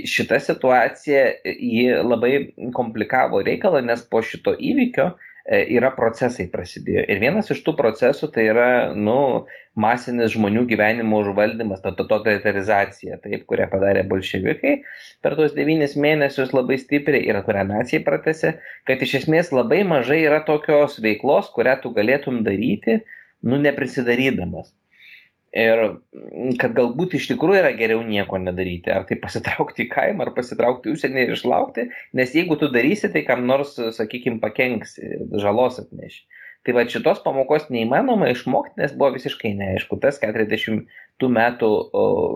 S2: šita situacija ji labai komplikavo reikalą, nes po šito įvykio yra procesai prasidėjo. Ir vienas iš tų procesų tai yra masinis žmonių gyvenimo užvaldymas, totalitarizacija, taip, kurią padarė bolševikai per tuos 9 mėnesius labai stipriai ir kurią naciai pratęsė, kad iš esmės labai mažai yra tokios veiklos, kurią tu galėtum daryti, neprisidarydamas. Ir kad galbūt iš tikrųjų yra geriau nieko nedaryti, ar tai pasitraukti į kaimą, ar pasitraukti į užsienį ir išlaukti, nes jeigu tu darysi, tai kam nors, sakykime, pakenksi, žalos atneši. Tai va šitos pamokos neįmanoma išmokti, nes buvo visiškai neaišku. Tas 40 metų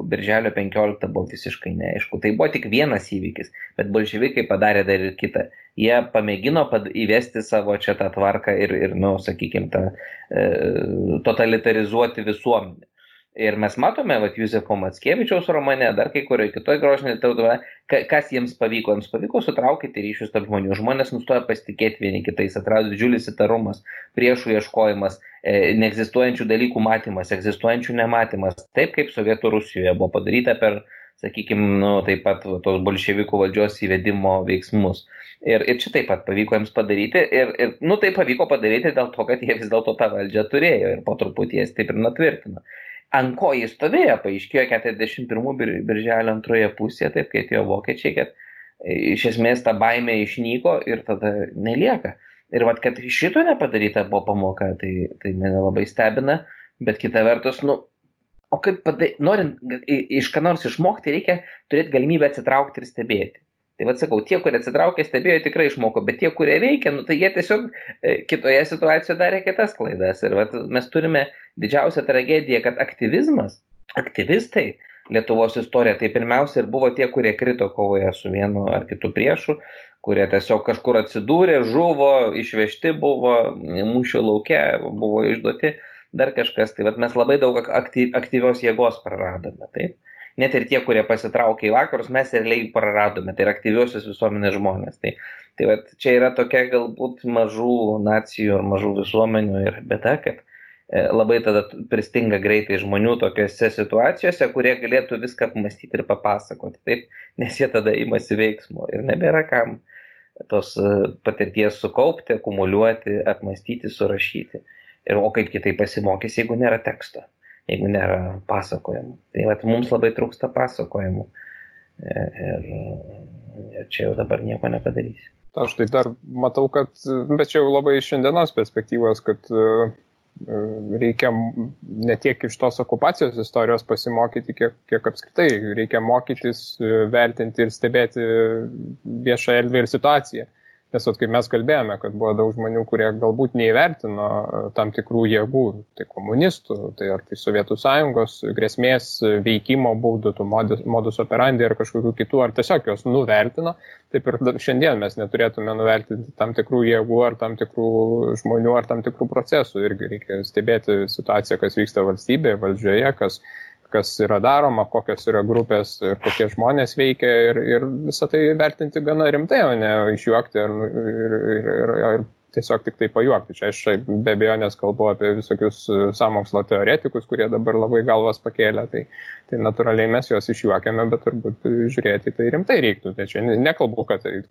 S2: birželio 15 buvo visiškai neaišku. Tai buvo tik vienas įvykis, bet bolševikai padarė dar ir kitą. Jie pamėgino įvesti savo čia tą tvarką ir sakykime, totalitarizuoti visuomenę. Ir mes matome, Juzefo Mackevičiaus romane, dar kai kurioje kitoje grožinėje literatūroje, kas jiems pavyko. Jiems pavyko sutraukyti ryšius tarp žmonių. Žmonės nustoja pasitikėti vieni kitais, atrado didžiulis įtarumas, priešų ieškojimas, neegzistuojančių dalykų matymas, egzistuojančių nematymas. Taip kaip Sovietų Rusijoje buvo padaryta per, sakykime, taip pat tos bolševikų valdžios įvedimo veiksmus. Ir čia taip pat pavyko jiems padaryti. Ir tai pavyko padaryti dėl to, kad jie vis dėlto tą valdžią turėjo ir po truputį jas taip ir natvirtino. ant ko jis stovėjo, paaiškėjo 41 birželio antroje pusėje, taip kai atėjo vokiečiai, kad iš esmės ta baimė išnyko ir tada nelieka. Ir vat, kad šito nepadaryta buvo pamoka, tai mane labai stebina, bet kita vertus, o kaip norint iš ką nors išmokti, reikia turėti galimybę atsitraukti ir stebėti. Tai vat sakau, tie, kurie atsitraukė, stebėjo, tikrai išmoko, bet tie, kurie veikia, tai jie tiesiog kitoje situacijoje darė kitas klaidas. Ir vat, mes turime didžiausią tragediją, kad aktyvistai Lietuvos istorija, tai pirmiausia ir buvo tie, kurie krito kovoje su vienu ar kitu priešu, kurie tiesiog kažkur atsidūrė, žuvo, išvežti buvo, mūšio lauke buvo išduoti, dar kažkas. Tai vat, mes labai daug aktyvios jėgos praradome. Taip? Net ir tie, kurie pasitraukė į vakarus, mes realiai praradome, tai yra aktyviosios visuomenės žmonės. Tai vat, čia yra tokia galbūt mažų nacijų ar mažų visuomenių ir bėda, kad labai tada pristinga greitai žmonių tokiose situacijose, kurie galėtų viską apmastyti ir papasakoti, taip, nes jie tada imasi veiksmo ir nebėra kam tos patirties sukaupti, akumuliuoti, apmastyti, surašyti. O kaip kitai pasimokys, jeigu nėra teksto, jeigu nėra pasakojimų. Tai vat, mums labai trūksta pasakojimų ir čia jau dabar nieko nepadarysi.
S1: Aš tai dar matau, kad, bet čia jau labai iš šiandienos perspektyvos, kad reikia ne tiek iš tos okupacijos istorijos pasimokyti, kiek apskritai. Reikia mokytis, vertinti ir stebėti viešą erdvę ir situaciją. Nes kaip mes kalbėjome, kad buvo daug žmonių, kurie galbūt neįvertino tam tikrų jėgų, tai komunistų, tai ar tai Sovietų Sąjungos grėsmės veikimo būdų, tų modus operandi ar kažkokių kitų, ar tiesiog jos nuvertino. Taip ir šiandien mes neturėtume nuvertinti tam tikrų jėgų ar tam tikrų žmonių ar tam tikrų procesų. Irgi reikia stebėti situaciją, kas vyksta valstybėje, valdžioje, kas yra daroma, kokios yra grupės ir kokie žmonės veikia ir visą tai vertinti gana rimtai, o ne išjuokti ir tiesiog tik tai pajuokti. Čia aš be abejonės kalbu apie visokius sąmokslo teoretikus, kurie dabar labai galvas pakėlė, tai natūraliai mes juos išjuokiame, bet turbūt žiūrėti tai rimtai reiktų. Tai čia nekalbu, kad tai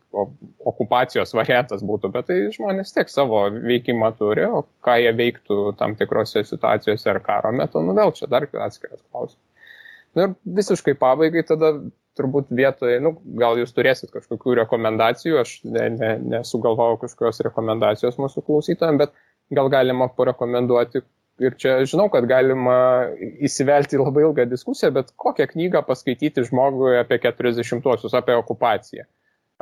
S1: okupacijos variantas būtų, bet tai žmonės tiek savo veikimą turi, o ką jie veiktų tam tikrose situacijose ar karo metu, vėl čia dar atskiras klausimas. Ir visiškai pabaigai tada turbūt vietoje, gal jūs turėsit kažkokių rekomendacijų, aš nesugalvojau kažkokios rekomendacijos mūsų klausytojams, bet gal galima parekomenduoti, ir čia žinau, kad galima įsivelti į labai ilgą diskusiją, bet kokią knygą paskaityti žmogui apie 40-uosius, apie okupaciją.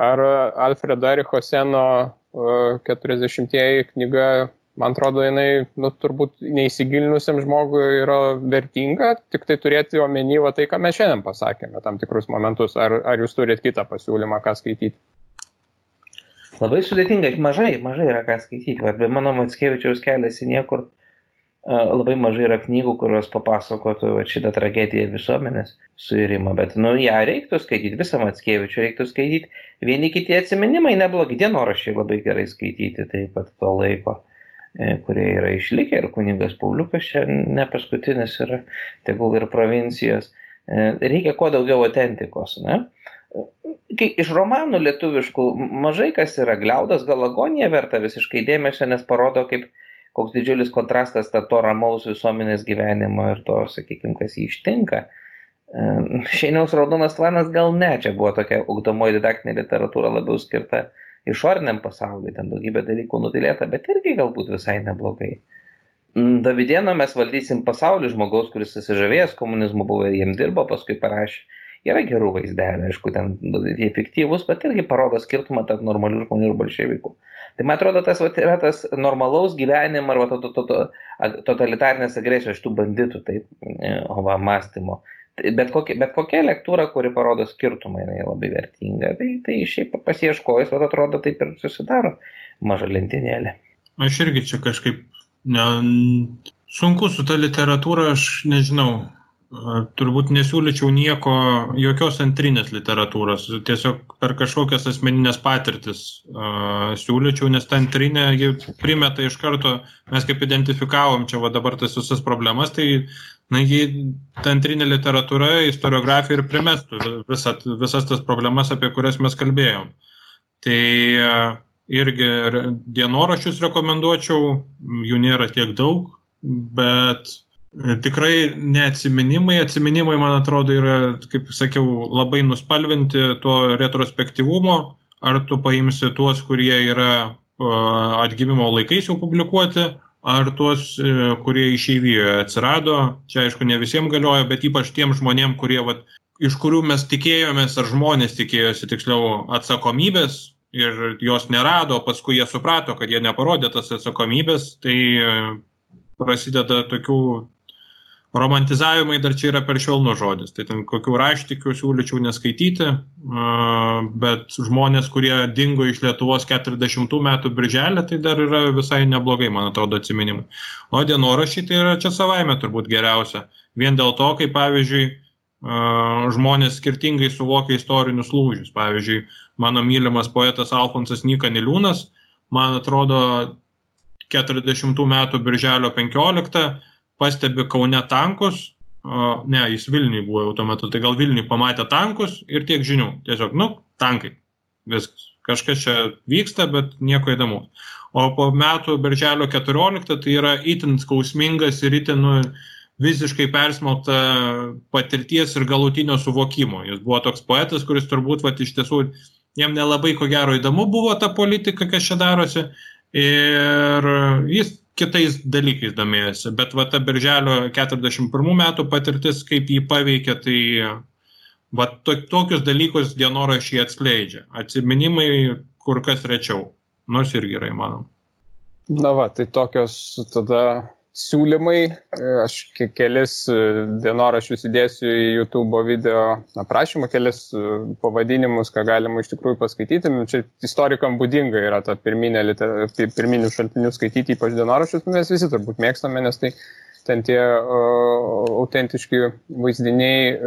S1: Ar Alfredo Ericho Seno 40-ieji knyga, man atrodo, jinai turbūt neįsigilinusiam žmogui yra vertinga, tik tai turėti omeny tai, ką mes šiandien pasakėme, tam tikrus momentus. Ar jūs turite kitą pasiūlymą, ką skaityti?
S2: Labai sudėtinga, mažai yra ką skaityti. Be mano Mackevičiaus kelias į niekur labai mažai yra knygų, kurios papasakotų šitą tragediją visuomenės suirimą. Bet ją reiktų skaityti, visą Mackevičių reiktų skaityti. Vieni kiti atsiminimai neblogi, dienoraščiai labai gerai skaityti taip pat to laiko, kurie yra išlikę, ir kunigas Pauliukas čia ne paskutinis yra, tegul ir provincijos. Reikia kuo daugiau autentikos, ne? Iš romanų lietuviškų mažai kas yra. Gliaudas gal Agonija verta visiškai dėmesio, nes parodo, koks didžiulis kontrastas to ramaus visuomenės gyvenimo ir to, sakykime, kas jį ištinka. Šeiniaus Raudonas tvanas gal ne, čia buvo tokia ugdomoji didaktinė literatūra labiau skirta išoriniam pasauliui, ten daugybė dalykų nutilėta, bet irgi galbūt visai neblogai. Davidėno Mes valdysim pasaulį, žmogaus, kuris susižavėjęs komunizmu buvo ir jiem dirbo, paskui parašė. Yra gerų vaizdelių, aišku, ten jie fiktyvus, bet irgi parodo skirtumą tarp normalių žmonių ir bolševikų. Tai man atrodo, tas yra tas normalaus gyvenimo ar totalitarinės agresijos šitų banditų, taip, mąstymo. Bet kokia lektūra, kuri parodo skirtumą, jinai labai vertinga. Tai šiaip pasieškojus, atrodo, taip ir susidaro maža lentynėlė.
S3: Aš irgi čia kažkaip sunku su ta literatūra, aš nežinau. Turbūt nesiūlyčiau jokios antrinės literatūros, tiesiog per kažkokias asmeninės patirtis siūlyčiau, nes ta antrinė primeta iš karto, mes kaip identifikavom čia dabar tas visas problemas, tai ta antrinė literatūra, istoriografija ir primestų visas tas problemas, apie kurias mes kalbėjom. Tai irgi dienoraščius rekomenduočiau, jų nėra tiek daug, bet Tikrai neatsiminimai. Atsiminimai, man atrodo, yra, kaip sakiau, labai nuspalvinti to retrospektyvumo. Ar tu paimsi tuos, kurie yra atgimimo laikais jau publikuoti, ar tuos, kurie išeivijoje atsirado. Čia, aišku, ne visiems galioja, bet ypač tiem žmonėm, kurie, iš kurių mes tikėjomės, ar žmonės tikėjosi, tiksliau, atsakomybės ir jos nerado, paskui jie suprato, kad jie neparodė tas atsakomybės, tai prasideda tokių romantizavimai, dar čia yra per švelnus žodis. Tai ten kokių raštikių siūlyčiau neskaityti, bet žmonės, kurie dingo iš Lietuvos 40 metų birželį, tai dar yra visai neblogai, man atrodo, atsiminimai. O dienoraščiai tai yra čia savaime turbūt geriausia. Vien dėl to, kaip pavyzdžiui, žmonės skirtingai suvokia istorinius lūžius. Pavyzdžiui, mano mylimas poetas Alfonsas Nyka Niliūnas, man atrodo, 40 metų birželio 15 pastebi Kaune tankus, ne, jis Vilniui buvo jau tuo metu, tai gal Vilniui pamatė tankus ir tiek žinių. Tiesiog, tankai, viskas. Kažkas čia vyksta, bet nieko įdomu. O po metų birželio 14 tai yra itin skausmingas ir itin visiškai persmelkta patirties ir galutinio suvokimo. Jis buvo toks poetas, kuris turbūt iš tiesų jam nelabai ko gero įdomu buvo ta politika, kas čia darosi, ir jis kitais dalykais domėjosi. Bet ta birželio 41 metų patirtis, kaip jį paveikė, tai tokius dalykus dienoraščiai atskleidžia. Atsiminimai kur kas rečiau, nors irgi yra įmanoma.
S1: Tai tokios tada siūlymai. Aš kelis dienoraščius įdėsiu į YouTube video aprašymą, kelis pavadinimus, ką galima iš tikrųjų paskaityti. Čia istorikam būdinga yra ta pirminių šaltinių skaityti, ypač dienoraščius. Mes visi turbūt mėgstame, nes tai ten tie autentiški vaizdiniai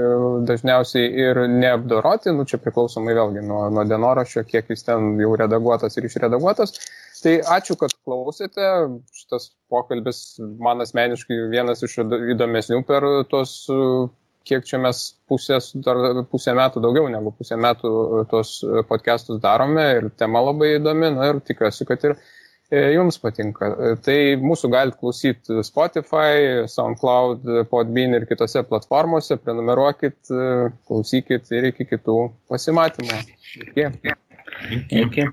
S1: dažniausiai ir neapdoroti. Čia priklausomai vėlgi nuo dienoraščio, kiek jis ten jau redaguotas ir išredaguotas. Tai ačiū, kad klausėte. Šitas pokalbis man asmeniškai vienas iš įdomesnių per tos, kiek čia mes pusę metų, daugiau negu pusę metų tos podcastus darome ir tema labai įdomi, ir tikiuosi, kad ir jums patinka. Tai mūsų galite klausyti Spotify, SoundCloud, Podbean ir kitose platformose. Prenumeruokit, klausykit ir iki kitų pasimatymų. Iki.